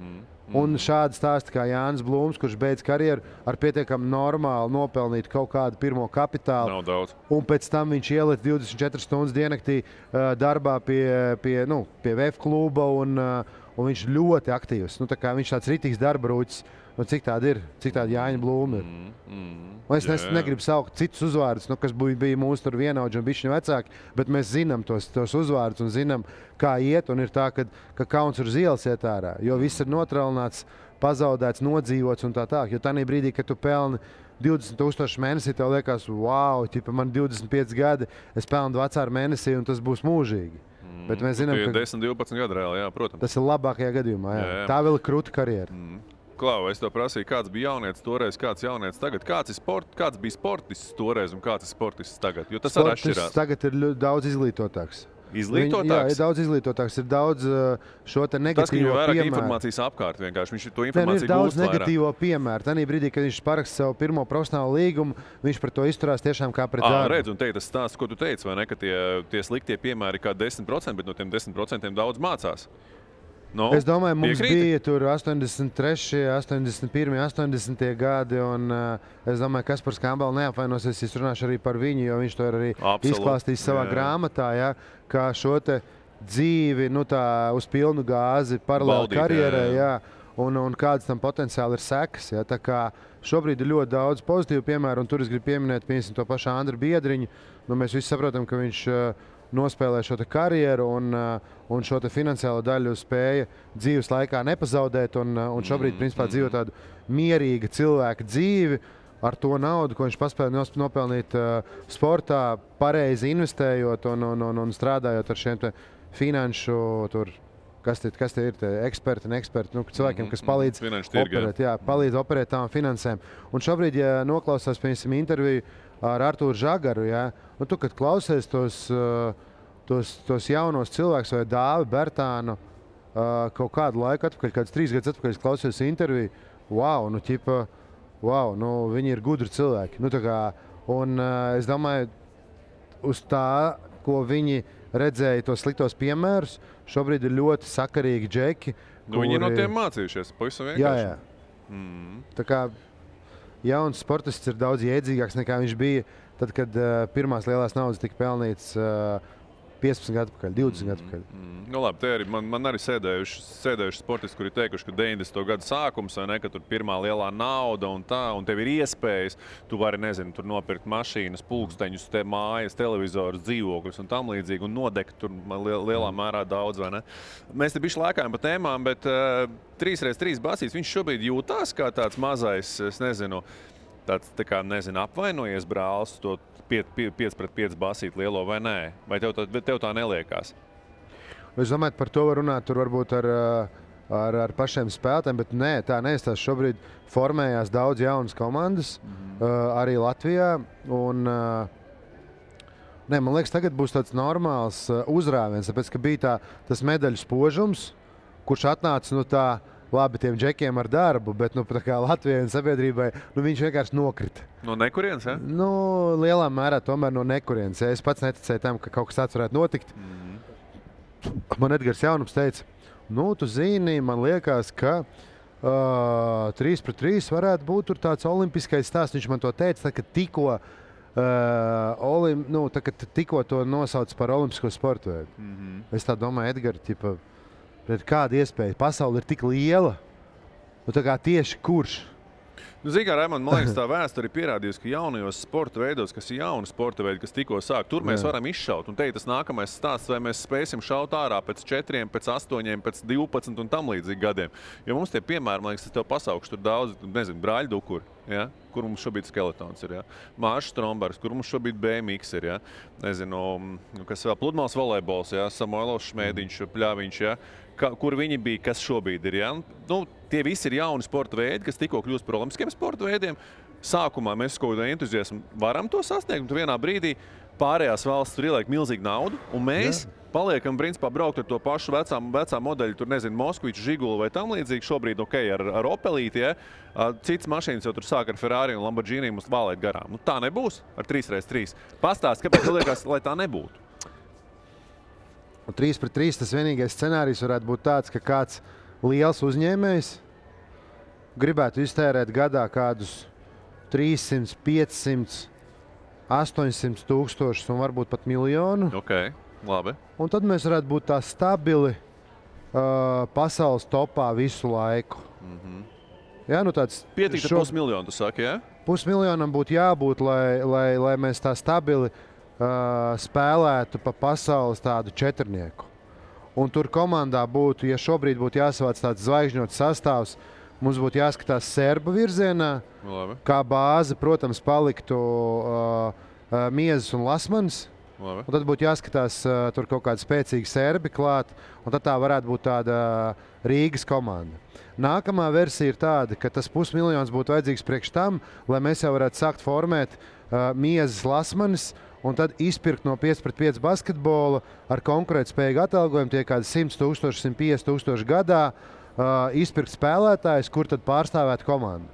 Un šādi stāsti kā Jānis Blūms, kurš beidz karjeru ar pietiekami normāli nopelnīt kaut kādu pirmo kapitālu. Nav daudz. Un pēc tam viņš ieliek 24 stundas diennaktī darbā pie VF kluba, un viņš ļoti aktīvs. Viņš tāds ritīgs darba rūķis. Cik tāda Jāņa Blūma ir? Es negribu saukt citus uzvārdus, kas bija mūsu vienaudži un bišķiņi vecāki, bet mēs zinām tos uzvārdus un zinām, kā iet. Un ir tā, ka kauns uz ielas iet ārā, jo viss ir notrālināts, pazaudēts, nodzīvots un tā tālāk. Jo tajā brīdī, kad tu pelni 20,000 mēnesī, tev liekas, wow, man 25 gadi, es pelnu vecāru mēnesī un tas būs mūžīgi. Bet mēs zinām, ka 10-12 gadi reāli, jā, protams. Tas ir labākajā gadījumā. Jā. Tā vēl ir krūta karjera. Klau, es to prasīju, kāds bija jaunietis toreiz, kāds jaunietis tagad. Kāds bija sportists toreiz un kāds ir sportists tagad? Jo tas arī atšķirās. Tagad ir daudz izglītotāks. Izglītotāks? Jā, ir daudz izglītotāks, ir daudz šo te negatīvo piemēru. Tas, ka viņam vairāk informācijas apkārt vienkārši, viņš to informāciju gūst vairāk. Ir daudz negatīvo piemēru. Tanī brīdī, kad viņš paraksta savu pirmo profesionālu līgumu, viņš par to izturās tiešām kā pret darbu. Redz, un tas stāsts, ko tu teici, vai ne, ka tie sliktie piemēri kā 10%, bet no tiem 10% daudz mācās. Es domāju, mums bija tur 83, 81, 80 gadi, un es domāju, ka Kaspars Kambals neapvainosies, es runāšu arī par viņu, jo viņš to ir arī izklāstījis savā grāmatā, kā šo te dzīvi uz pilnu gāzi paralēli karjerai, un kāds tam potenciāli ir sekas. Tā kā šobrīd ir ļoti daudz pozitīvu piemēru, un tur es gribu pieminēt, piemēram, to pašu Andru Biedriņu. Mēs visi saprotam, ka viņš nospēlē šo karjeru un šo finansiālo daļu spēja dzīves laikā nepazaudēt. Un šobrīd, principā, dzīvo tādu mierīgu cilvēku dzīvi ar to naudu, ko viņš paspēja nopelnīt sportā, pareizi investējot un strādājot ar šiem finanšu, kas tie ir, eksperti, cilvēkiem, kas palīdz operēt tām finansēm. Un šobrīd, ja noklausās, piemēram, interviju ar Artūru Žagaru, tu, kad klausies tos jaunos cilvēkus vai Dāvi Bertānu kaut kādu laiku atpakaļ, kādus 3 gadus atpakaļ, klausījos interviju, viņi ir gudri cilvēki. Es domāju, uz tā, ko viņi redzēja, tos sliktos piemērus, šobrīd ir ļoti sakarīgi džeki. Viņi no tiem mācījušies, pavisam vienkārši. Jā. Tā kā jauns sportists ir daudz jēdzīgāks nekā viņš bija tad, kad pirmās lielās naudas tika pelnīts 15 gadu atpakaļ, 20 gadu atpakaļ. Nu, labi, te arī man arī sēdējuši sportisti, kuri teikuši, ka 90. gadu sākums, vai ne, ka tur pirmā lielā nauda un tā, un tev ir iespējas, tu vari, nezinu, tur nopirkt mašīnas, pulksteņus, mājas, televizorus, dzīvokļus un tam līdzīgi, un nodegt tur lielā mērā daudz, vai ne? Mēs te bišķi lēkājam pa tēmām, bet 3x3 basīts, viņš šobrīd jūtās kā tāds mazais, es nezinu, tāds, tā kā, nezinu, apvainojies brālis, to 5x5 basīt lielo vai nē? Vai tev tā neliekās? Es domāju, par to var runāt tur varbūt ar pašiem spēlētājiem, bet nē, tā neizstās. Šobrīd formējās daudz jaunas komandas, arī Latvijā. Un, man liekas, tagad būs tāds normāls uzrāviens, tāpēc, ka bija tas medaļu spožums, kurš atnāca no tā, labi, tiem džekiem ar darbu, bet tā kā Latvijai un sabiedrībai, viņš vienkārši nokrita. No nekurienes, ja? Lielā mērā tomēr no nekurienes. Es pats neticēju tam, ka kaut kas tāds varētu notikt. Man Edgars Jaunums teica, tu zini, man liekas, ka 3x3 varētu būt tur tāds olimpiskais stāsts. Viņš man to teica, kad tikko to nosauc par olimpisko sportu veidu. Es tā domāju, Edgars, kāda iespēja? Pasaule ir tik liela, tā kā tieši kurš? Zini, kā, Raimond, man liekas, tā vēsture ir pierādījusi, ka jaunajos sporta veidos, kas ir jauni sporta veidi, kas tikko sāk, tur mēs varam izšaut. Un te ir tas nākamais stāsts, vai mēs spēsim šaut ārā pēc 4, pēc 8, pēc 12 un tam līdzīgi gadiem. Jo mums tie piemēri, man liekas, es tev pasaukšu tur daudz, nezinu, Brāļu Dukuri, ja? Kur mums šobrīd Skeletons ir, ja? Māša Strombergs, kur mums šobrīd BMX ir, ja? Nezinu, kas vēl, pludmales volejbols, ja? Samoilovs Šmēdiņš, Pļaviņš, ja? Kur viņi bija, kas šobrīd ir. Ja? Tie visi ir jauni sporta veidi, kas tikko kļūst par olimpiskiem sporta veidiem. Sākumā mēs kaut kādā entuziasmu varam to sasniegt, un vienā brīdī pārējās valsts tur ieliek milzīgu naudu, un mēs paliekam, principā, braukt ar to pašu vecā modeļu, tur, nezinu, Moskviču, Žigulu vai tam līdzīgi. Šobrīd, ar Opelīti, ja? Cits mašīnas jau tur sāk ar Ferrari un Lamborghini mums valēt garām. Tā nebūs ar 3x3. Pastāst, kāpēc tu liekas, lai tā nebūtu? 3x3 tas vienīgais scenārijs varētu būt tāds, ka kāds liels uzņēmējs gribētu iztērēt gadā kādus 300, 500, 800 tūkstošus un varbūt pat miljonu. Okay, labi. Un tad mēs varētu būt tā stabili pasaules topā visu laiku. Jā, tāds Pietiktu pusmiljonu, tu saki, jā? Pusmiljonam būtu jābūt, lai mēs tā stabili spēlētu pa pasaules tādu četrnieku. Un tur komandā būtu, ja šobrīd būtu jāsavāc tāds zvaigžņots sastāvs, mums būtu jāskatās serbu virzienā. Labi. Kā bāze, protams, paliktu Miezes un Lasmans. Labi. Un tad būtu jāskatās tur kaut kādi spēcīgi serbi klāt, un tad tā varētu būt tāda Rīgas komanda. Nākamā versija ir tāda, ka tas pusmiljons būtu vajadzīgs priekš tam, lai mēs jau varētu sākt formēt Miezes, Lasmanis, un tad izpirkt no 5x5 basketbola ar konkurētspējīgu atalgojumu, tie kādi 100 000, 150 000 gadā, izpirkt spēlētājus, kur tad pārstāvētu komandu.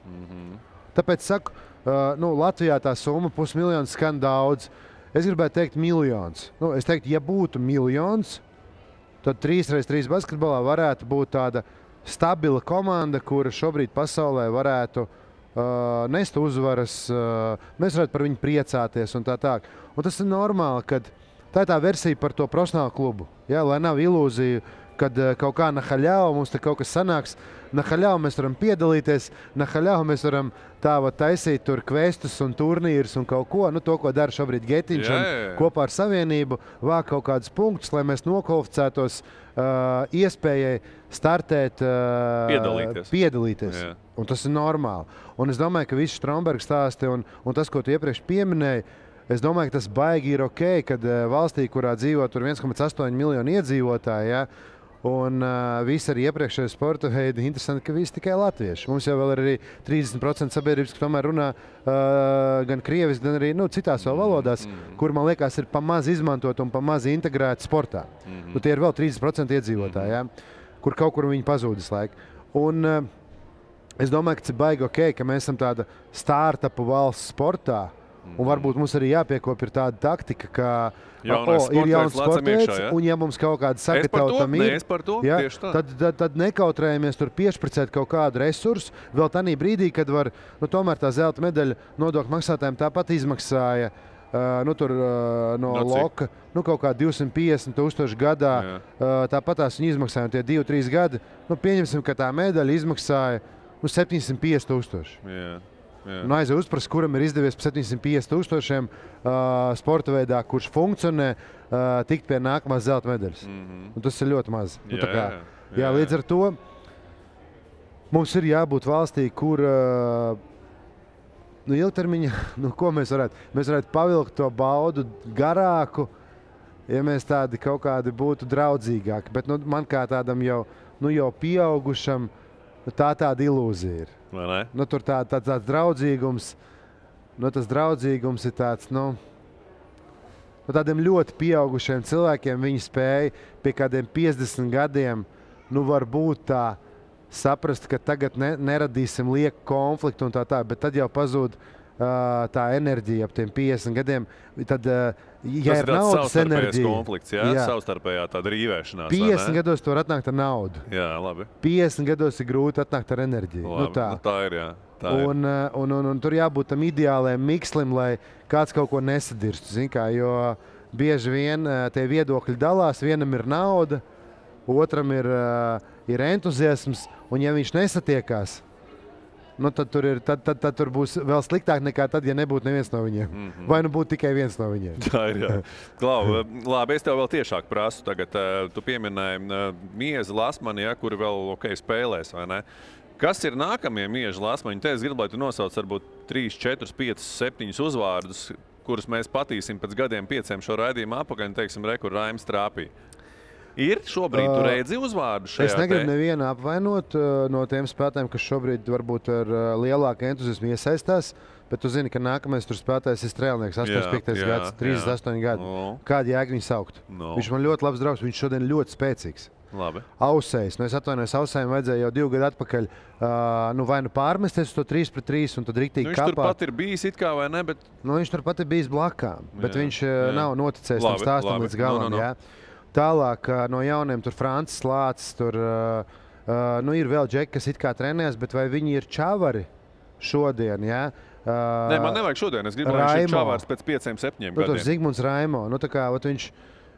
Tāpēc saku, Latvijā tā summa pusmiljons skan daudz. Es gribētu teikt miljons. Es teiktu, ja būtu miljons, tad 3x3 basketbolā varētu būt tāda stabila komanda, kura šobrīd pasaulē varētu nest uzvaras, mēs varētu par viņu priecāties un tā tā. Un tas ir normāli, kad tā ir tā versija par to profesionālu klubu. Ja, lai nav ilūzija, kad kaut kā nahaļau mums te kaut kas sanāks. Nahaļau mēs varam piedalīties, nahaļau mēs varam taisīt tur kvestus un turnīrus un kaut ko, to, ko dara šobrīd Getiņš un kopā ar Savienību, vāk kaut kādus punktus, lai mēs nokvalificētos iespējai startēt, piedalīties. Jā. Un tas ir normāli. Un es domāju, ka visi Stromberga stāsti un tas, ko tu iepriekš pieminēji, es domāju, ka tas baigi ir ok, kad valstī, kurā dzīvo tur 1,8 miljonu iedzīvotāji, ja, un visi arī iepriekšējie sporta veidi, interesanti, ka visi tikai latvieši. Mums jau vēl ir arī 30% sabiedrības, ka tomēr runā gan krieviski, gan arī citās vēl valodās, kur, man liekas, ir pamaz izmantot un pamaz integrēt sportā. Tie ir vēl 30% iedzīvotāji, ja, kur kaut kur viņi pazūdas laika. Un es domāju, ka tas ir baigi ok, ka mēs esam tāda startupu valsts sportā, un varbūt mums arī jāpiekopja ir tāda taktika, ka ir jauns sportveids, un ja mums kaut kāda sagatavotam ir, tad nekautrējamies tur piešpricēt kaut kādu resursu, vēl tanī brīdī, kad var, tomēr tā zelta medaļa nodokļu maksātājiem tāpat izmaksāja tur no Loka, kaut kā 250,000 gadā. Tāpat tās viņi izmaksāja tie 2-3 gadi. Pieņemsim, ka tā medaļa izmaksāja 750,000. Un aizvien uzprast, kuram ir izdevies par 750,000 sporta veidā, kurš funkcionē, tikt pie nākamās zelta medaļas. Un tas ir ļoti maz. Līdz ar to mums ir jābūt valstī, kur ilgtermiņā, ko mēs varētu pavilkt to baudu garāku, ja mēs tādi kaut kādi būtu draudzīgāki. Bet man kā tādam jau pieaugušam, tāda ilūzija ir. Tur tāds draudzīgums, tas draudzīgums ir tāds, tādiem ļoti pieaugušiem cilvēkiem viņi spēja pie kādiem 50 gadiem, varbūt tā saprast, ka tagad neradīsim lieku konfliktu un tā, bet tad jau pazūd tā enerģija ap tiem 50 gadiem. Tad, ja tas ir naudas enerģija, konflikts, savstarpējā tāda rīvēšanās. 50 gados tu var atnākt ar naudu. Jā, labi. 50 gados ir grūti atnākt ar enerģiju. Labi, tā ir, jā. Un tur jābūt tam ideālajam mikslim, lai kāds kaut ko nesadirstu. Jo bieži vien tie viedokļi dalās, vienam ir nauda, otram ir entuziasms, un ja viņš nesatiekās, tad tur būs vēl sliktāk nekā tad, ja nebūtu neviens no viņiem. Vai būtu tikai viens no viņiem. Tā ir, jā. Klau, labi, es tev vēl tiešāk prasu. Tagad tu pieminēji Miezi Lasmani, kuri vēl spēlēs, vai ne? Kas ir nākamie Mieži Lasmaņi? Te es gribu, lai tu nosauc varbūt 3, 4, 5, 7 uzvārdus, kurus mēs patīsim pēc gadiem 5 šo raidījumu apakaļ, un teiksim, kur Raims trāpīja. Ir šobrīd tu redzi uzvārdu šajā? Es negribu nevienu apvainot no tiem spēlētājiem, kas šobrīd varbūt ar lielāku entuziasmu iesaistās, bet tu zini, ka nākamais tur spēlētājs ir Strēlnieks, 85. gads, 38 gadi. Kādu jēgu viņu saukt? Viņš man ļoti labs draugs, viņš šodien ļoti spēcīgs. Labi. Ausējs. Es atvainojos, Ausējiem vajadzēja jau 2 gadu atpakaļ vai pārmesties uz to 3-3 un tad riktīgi kapāt. Viņš turpat ir bijis it kā vai ne, bet... Viņš turpat ir bijis blakām, bet viņš nav noticējis tam stāstam līdz galam. Tālāk no jauniem tur Francis Lācis, tur ir vēl džeki, kas it kā trenējas, bet vai viņi ir čavari šodien, Nē, man nevajag šodien, es gribu, lai viņš ir čavārs pēc 5-7 gadiem. Tur Zigmunds Raimo,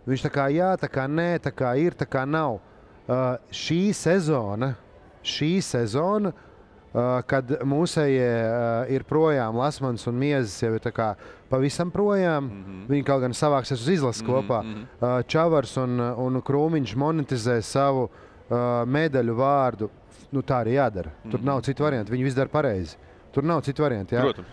viņš tā kā jā, tā kā nē, tā kā ir, tā kā nav. Šī sezona, kad mūsējie ir projām, Lasmans un Miezis jau ir tā kā pavisam projām, viņi kaut gan savāksies uz izlases kopā. Čavars un Krūmiņš monetizē savu medaļu vārdu. Tā arī jādara. Tur nav citu variantu. Viņi viss dara pareizi. Tur nav citu variantu. Protams.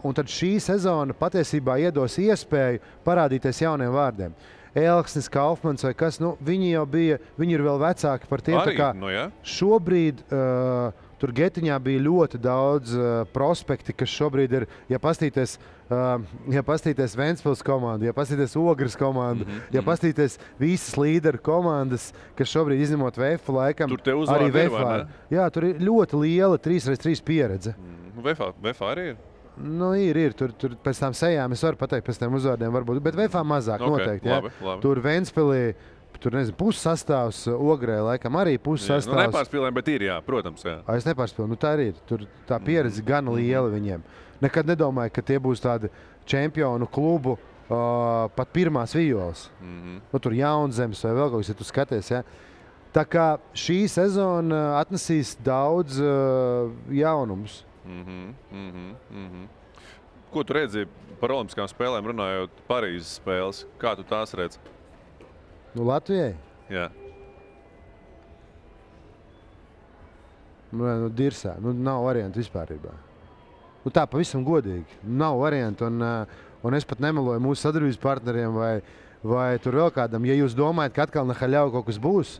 Un tad šī sezona patiesībā iedos iespēju parādīties jauniem vārdiem. Elksnis, Kaufmans vai kas, viņi jau bija, viņi ir vēl vecāki par tiem. Arī, šobrīd tur Getiņā bija ļoti daudz prospekti, kas šobrīd ir, ja pastīties Ventspils komandu, ja pastīties Ogres komandu, ja pastīties visas līderu komandas, kas šobrīd izņemot VF laikam, arī VF. Jā, tur ir ļoti liela 3x3 pieredze. VF arī ir? Ir. Tur pēc tām sejām es varu pateikt pēc tiem uzvārdiem varbūt, bet VF mazāk noteikti. Labi. Tur Ventspilī, tur pussastāvs, Ogrē laikam arī pussastāvs. Nepārspīlējam, bet ir, jā, protams. Jā. Es nepārspīlēju, tā arī ir. Tur tā pieredze gan liela viņiem. Nekad nedomāju, ka tie būs tādi čempionu klubu pat pirmās violas. Tur Jaunzemes vai vēl kaut kas, ja tu skaties. Ja? Tā kā šī sezona atnesīs daudz jaunumus. Ko tu redzi par olimpiskām spēlēm, runājot Parīzes spēles? Kā tu tās redzi? Latvijai? Jā. Dirsā. Nav variantu vispārībā. Tā pavisam godīgi. Nav variantu. Un es pat nemeloju mūsu sadarbības partneriem vai tur vēl kādam. Ja jūs domājat, ka atkal Nahaļau kaut kas būs,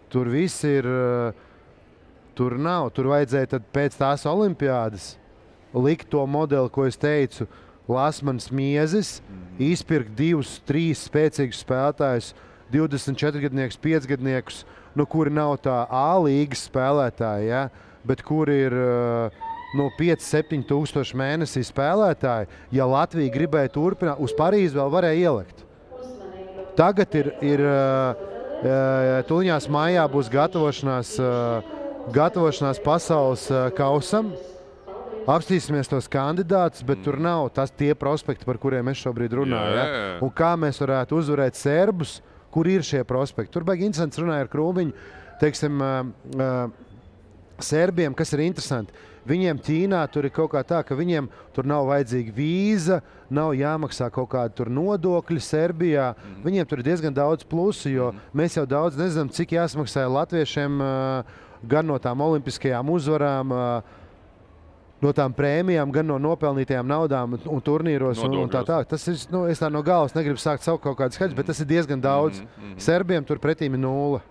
tur viss ir... Tur nav. Tur vajadzēja tad pēc tās olimpiādas likt to modeli, ko es teicu, Lasmans, Miezis, izpirkt 2-3 spēcīgus spēlētājus, 24-gadniekus, 5-gadniekus, kuri nav tā A līgas spēlētāji, ja? Bet kuri ir 5-7 tūkstoši mēnesī spēlētāji. Ja Latvija gribēja turpināt, uz Parīzi vēl varēja ielikt. Tagad ir tuliņās maijā būs gatavošanās pasaules kausam. apstīsimies tos kandidātus, bet tur nav tie prospekti, par kuriem es šobrīd runāju. Ja? Un kā mēs varētu uzvarēt serbus, kur ir šie prospekti. Tur baigi interesants runāja ar Krūmiņu, teiksim, serbiem, kas ir interesanti. Viņiem Ķīnā tur ir kaut kā tā, ka viņiem tur nav vajadzīga vīza, nav jāmaksā kaut kāda tur nodokļi Serbijā. Viņiem tur ir diezgan daudz plusu, jo mēs jau daudz nezinām, cik jāsmaksā latviešiem gan no tām olimpiskajām uzvarām, no tām prēmijām, gan no nopelnītajām naudām un turnīros un tā. Tas ir, es tā no galvas negribu sākt savu kaut kādu skaļus, bet tas ir diezgan daudz. Serbiem tur pretīm ir 0.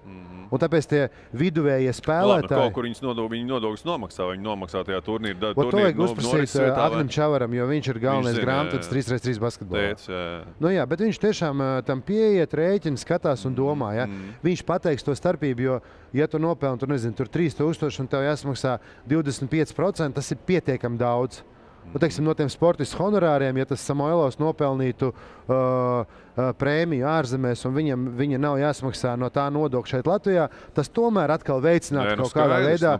Un tāpēc tie viduvējie spēlētāji... Kaut kur viņi nodokļus nomaksā, viņi nomaksā tajā turnīru. To vajag uzprasīt Agnim Čavaram, jo viņš ir galvenais grāmatvedis 3x3 basketbolā. Jā, bet viņš tiešām tam pieiet, rēķina, skatās un domā. Ja? Viņš pateiks to starpību, jo, ja tu nopelni, tur 3000 un tev jāsmaksā 25%, tas ir pietiekami daudz. Teiksim, no tiem sportistu honorāriem, ja tas Samoilovs nopelnītu prēmiju ārzemēs un viņa nav jāsmaksā no tā nodokļa šeit Latvijā, tas tomēr atkal veicinātu kaut kādā veidā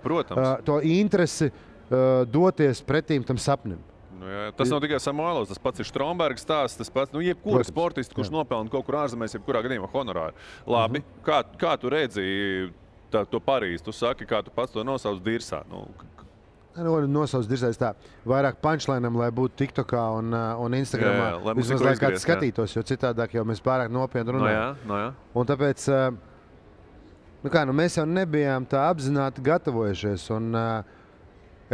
to interesi doties pretīm tam sapnim. Tas nav tikai Samoilovs, tas pats ir Strombergs stāsts, tas pats, jebkura sportists, kurš nopelna kaut kur ārzemēs, jebkurā gadījumā honorāru. Labi, kā tu redzi to Parīzi? Tu saki, kā tu pats to nosauc Dirsā? Nosauc Dirsais tā, vairāk punchlineam, lai būtu TikTokā un Instagramā. Vismaz, lai kāds skatītos, jo citādāk jau mēs pārāk nopietni runājam. Un tāpēc, mēs jau nebijām tā apzināti gatavojušies. Un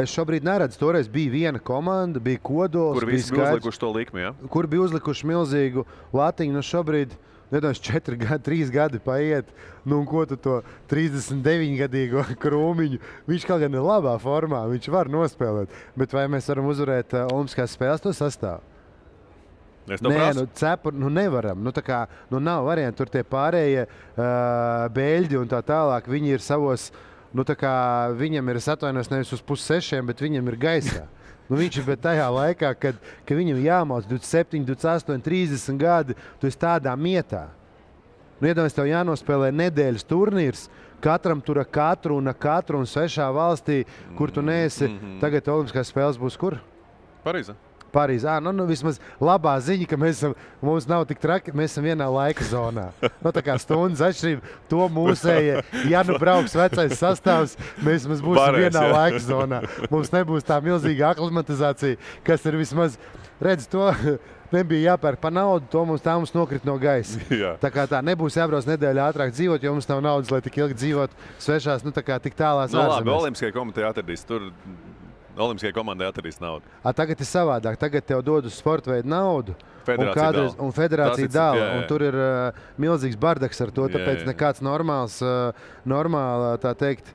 es šobrīd neredzu, toreiz bija viena komanda, bija Kodols. Kur visi bija uzlikuši to likmi, ja? Kur bija uzlikuši milzīgu latiņu. Šobrīd, 3 gadi paiet, un ko tu to 39-gadīgo Krūmiņu, viņš kaut gan ir labā formā, viņš var nospēlēt, bet vai mēs varam uzvarēt olimpiskās spēles to sastāvu? Nevaram. Nav variantu, tur tie pārējie beļģi un tā tālāk, viņi ir savos, viņam ir, es atvainojos, nevis uz 5:30, bet viņam ir gaisā. Viņš ir tajā laikā, kad viņam jāmauc 27, 28, 30 gadi, tu esi tādā mietā. Iedomājies, tev jānospēlē nedēļas turnīrs, katram tur ar katru un svešā valstī, kur tu neesi. Tagad olimpiskās spēles būs kur? Parīzē. Vismaz labā ziņa, ka mums nav tik traki, mēs esam vienā laika zonā. Tā kā stundas atšķirība, to mūsējie, ja brauks vecais sastāvs, mēs būsim vienā laika zonā. Mums nebūs tā milzīga aklimatizācija, kas ir vismaz, redz, to nebija jāpērk pa naudu, to mums nokrit no gaisa. Tā kā tā nebūs jābrauc nedēļu ātrāk dzīvot, jo mums nav naudas, lai tik ilgi dzīvot svešās, tik tālās ārzemēs. Labi, Olimpiskajai komitejai atradīs tur. Olimpiskajai komandai atradīs naudu. Tagad ir savādāk. Tagad tev dod uz sporta veidu naudu. Un federācija dala. Un tur ir milzīgs bardaks ar to. Tāpēc nekāds normāla, tā teikt,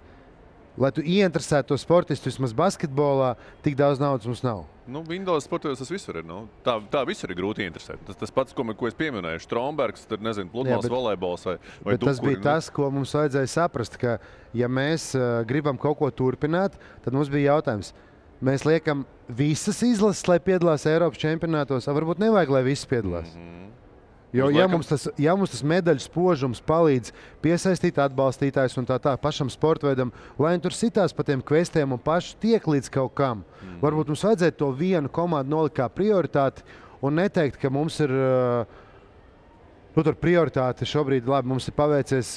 lai tu ieinteresētu to sportistu vismaz basketbolā, tik daudz naudas mums nav. Windows sportos tas visur ir. Tā visur ir grūti interesēt. Tas pats, ko es pieminēju, Strombergs, pludmales volejbols vai bet tas bija tas, ko mums vajadzēja saprast, ka ja mēs gribam kaut ko turpināt, tad mums bija jautājums. Mēs liekam visas izlases, lai piedalās Eiropas čempionātos, varbūt nevajag, lai visas piedalās. Jo, ja mums tas medaļu spožums palīdz piesaistīt atbalstītājus un tā pašam sportveidam, lai viņi tur sitās pa tiem kvestiem un paši tiek līdz kaut kam, varbūt mums vajadzētu to vienu komandu nolikt kā prioritāti un neteikt, ka mums ir tur prioritāte šobrīd, labi, mums ir paveicies,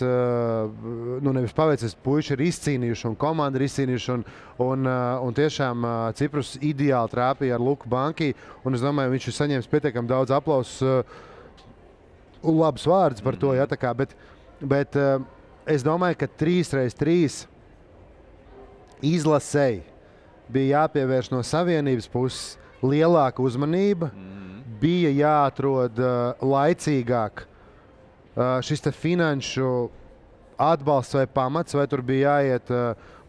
nevis paveicies, puiši ir izcīnījuši un komanda ir izcīnījuši un tiešām Ciprus ideāli trāpīja ar Luku Banki un es domāju, viņš ir saņēmis pietiekami daudz aplausus un labs vārds par to, bet es domāju, ka 3x3 izlasēji bija jāpievērš no savienības puses lielāka uzmanība, bija jāatrod laicīgāk šis finanšu atbalsts vai pamats, vai tur bija jāiet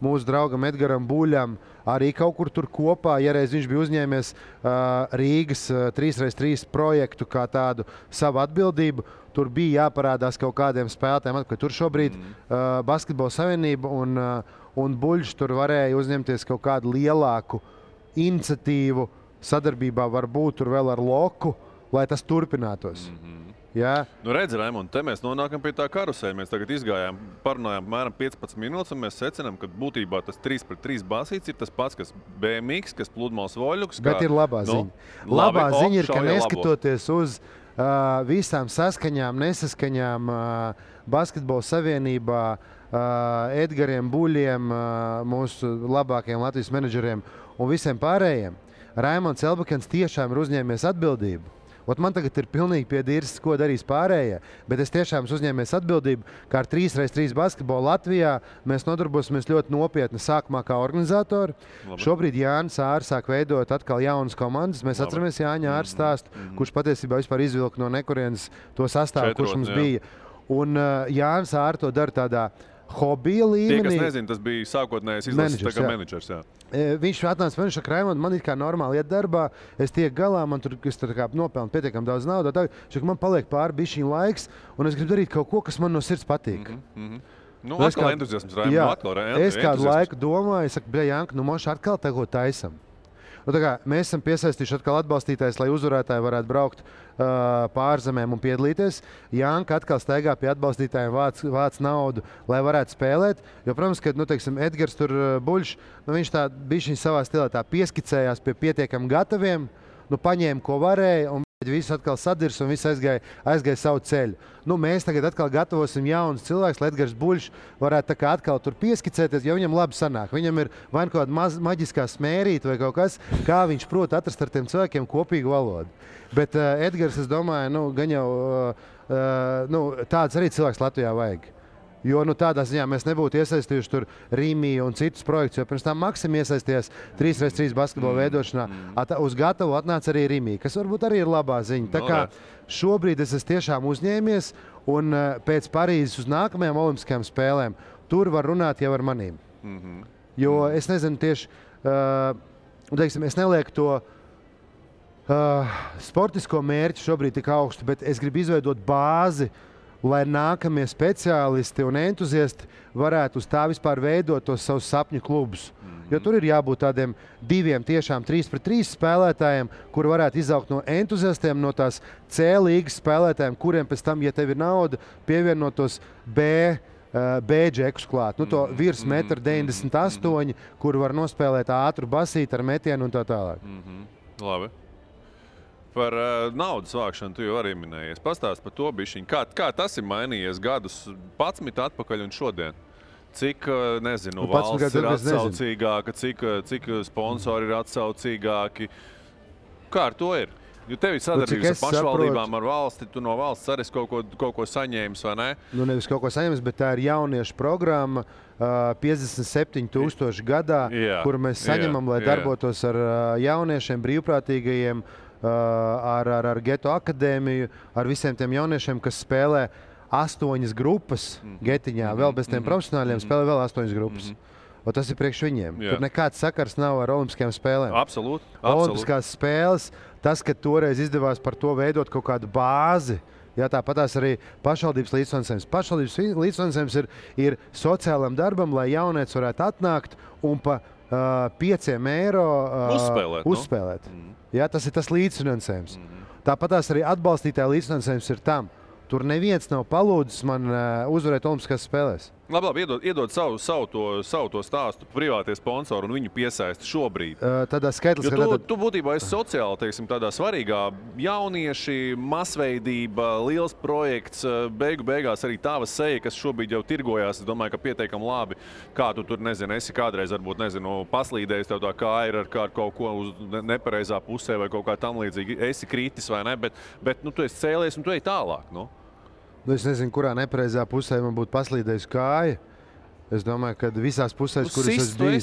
mūsu draugam Edgaram Buļam arī kaut kur tur kopā, ja reiz viņš bija uzņēmies Rīgas 3x3 projektu kā tādu savu atbildību, tur bija jāparādās kaut kādiem spēlētājiem, ka tur šobrīd Basketbola savienība un Buļš tur varēja uzņemties kaut kādu lielāku iniciatīvu sadarbībā varbūt tur vēl ar Loku, lai tas turpinātos. Jā. Nu, redz, Raimond, te mēs nonākam pie tā karusēļa. Mēs tagad izgājām, parunājām apmēram 15 minūtes, un mēs secinām, ka būtībā tas 3-3 basīts ir tas pats, kas BMX, kas pludmales voļuks. Bet ir labā ziņa. Labā ziņa ir, ka neskatoties uz visām saskaņām, nesaskaņām Basketbola savienībā, Edgariem Buļiem, mūsu labākajiem Latvijas menedžeriem un visiem pārējiem, Raimonds Elbakens tiešām ir uzņēmies atbildību. Ot man tagad ir pilnīgi piedīrs, ko darīs pārējie, bet es tiešām uzņēmies atbildību, kā ar 3x3 basketbolu Latvijā mēs nodarbosimies ļoti nopietni sākumā kā organizatori. Labi. Šobrīd Jānis Ārs sāk veidot atkal jaunas komandas. Mēs atceramies Jāņa Ārs stāstu, kurš patiesībā vispār izvilka no nekurienes to sastāvu, kurš mums bija. Un Jānis Ārs to dara tādā hobija līmenī. Tie, kas nezina, tas bija sākotnējais izlases menedžers. Jā. Viņš atnāca man, šaka, Raimond, man it kā normāli iet darbā, es tiek galā, man tur nopelnu pietiekam daudz naudas. Man paliek pāri bišķiņ laiks, un es gribu darīt kaut ko, kas man no sirds patīk. Nu, atkal entuziasms, Raimond. Jā, atkal es kādu laiku domāju, es saku, Janka, nu moši atkal tego taisam. Nu, mēs esam piesaistījuši atkal atbalstītājus, lai uzvarētāji varētu braukt pārzemēm un piedalīties. Janka atkal staigā pie atbalstītājiem, vāc naudu, lai varētu spēlēt. Jo, protams, ka Edgars tur Buļš, viņš tā bišķiņ savā stilā tā pieskicējās pie pietiekam gataviem, paņēma, ko varēja, un viss atkal sadirs un viss aizgāja savu ceļu. Mēs tagad atkal gatavosim jaunus cilvēkus, lai Edgars Buļš varētu tā kā atkal tur pieskicēties, jo viņam labi sanāk. Viņam ir vai kaut kāda maģiskā smērīta vai kaut kas, kā viņš prot atrast ar tiem cilvēkiem kopīgu valodu. Bet Edgars, es domāju, gan jau tāds arī cilvēks Latvijā vajag. Jo tādā ziņā mēs nebūtu iesaistījuši tur Rīmiju un citus projektus, jo pirms tam Maksim iesaistījās 3x3 basketbola veidošanā. Uz gatavu atnāca arī Rīmija, kas varbūt arī ir labā ziņa. Tā kā šobrīd es esmu tiešām uzņēmies, un pēc Parīzes uz nākamajām olimpiskajām spēlēm tur var runāt jau ar manīm. Jo es nezinu tieši, es nelieku to sportisko mērķi šobrīd tik augstu, bet es gribu izveidot bāzi, lai nākamie speciālisti un entuziasti varētu uz tā vispār veidot tos savus sapņu klubus. Jo tur ir jābūt tādiem 2 tiešām 3-3 spēlētājiem, kuri varētu izaugt no entuziastiem, no tās C līgas spēlētājiem, kuriem pēc tam, ja tev ir nauda, pievienotos B-džekus klāt. To virs 1,98 m, kur var nospēlēt ātru basīti ar metienu un tā tālāk. Labi. Par naudas vākšanu tu jau arī minējies. Pastāst par to bišķiņ. Kā tas ir mainījies gadus 11 atpakaļ un šodien? Cik, valsts ir atsaucīgāka, cik sponsori ir atsaucīgāki? Kā ar to ir? Jo tev ir sadarbības ar pašvaldībām, ar valsti, tu no valsts arī kaut ko saņēmis, vai ne? Nevis kaut ko saņēmis, bet tā ir jauniešu programma 57,000 gadā, kuru mēs saņemam, lai darbotos ar jauniešiem, brīvprātīgajiem, ar Geto akadēmiju, ar visiem tiem jauniešiem, kas spēlē 8 grupas Getiņā, vēl bez tiem profesionāļiem spēlē vēl 8 grupas. Un tas ir priekš viņiem. Tur nekāds sakars nav ar olimpiskajām spēlēm. Absolūti. Olimpiskās spēles, tas, ka toreiz izdevās par to veidot kaut kādu bāzi, tāpatās arī pašvaldības līdzfinansējums. Pašvaldības līdzfinansējums ir sociālam darbam, lai jaunietis varētu atnākt un pa 5 eiro uzspēlēt. Tas ir tas līdzfinansējums. Tāpatās arī atbalstītāja līdzfinansējums ir tam. Tur neviens nav palūdzis man uzvarēt olimpiskās spēlēs. Labi, iedod savu to stāstu privātie sponsori un viņu piesaisti šobrīd. Tādā skaitlis, tu būtībā esi sociāli, tādā svarīgā jaunieši, masveidība, liels projekts, beigās arī tava seja, kas šobrīd jau tirgojās, es domāju, ka pietiekami labi. Kā tu tur, esi kādreiz, varbūt, paslīdējis tev tā kāja ir ar kaut ko uz nepareizā pusē vai kaut kā tam līdzīgi. Esi kritis vai ne, bet tu esi cēlies un tu ej tālāk, Es nezinu, kurā nepareizā pusē man būtu paslīdējusi kāja. Es domāju, ka visās pusēs, kuras es biju.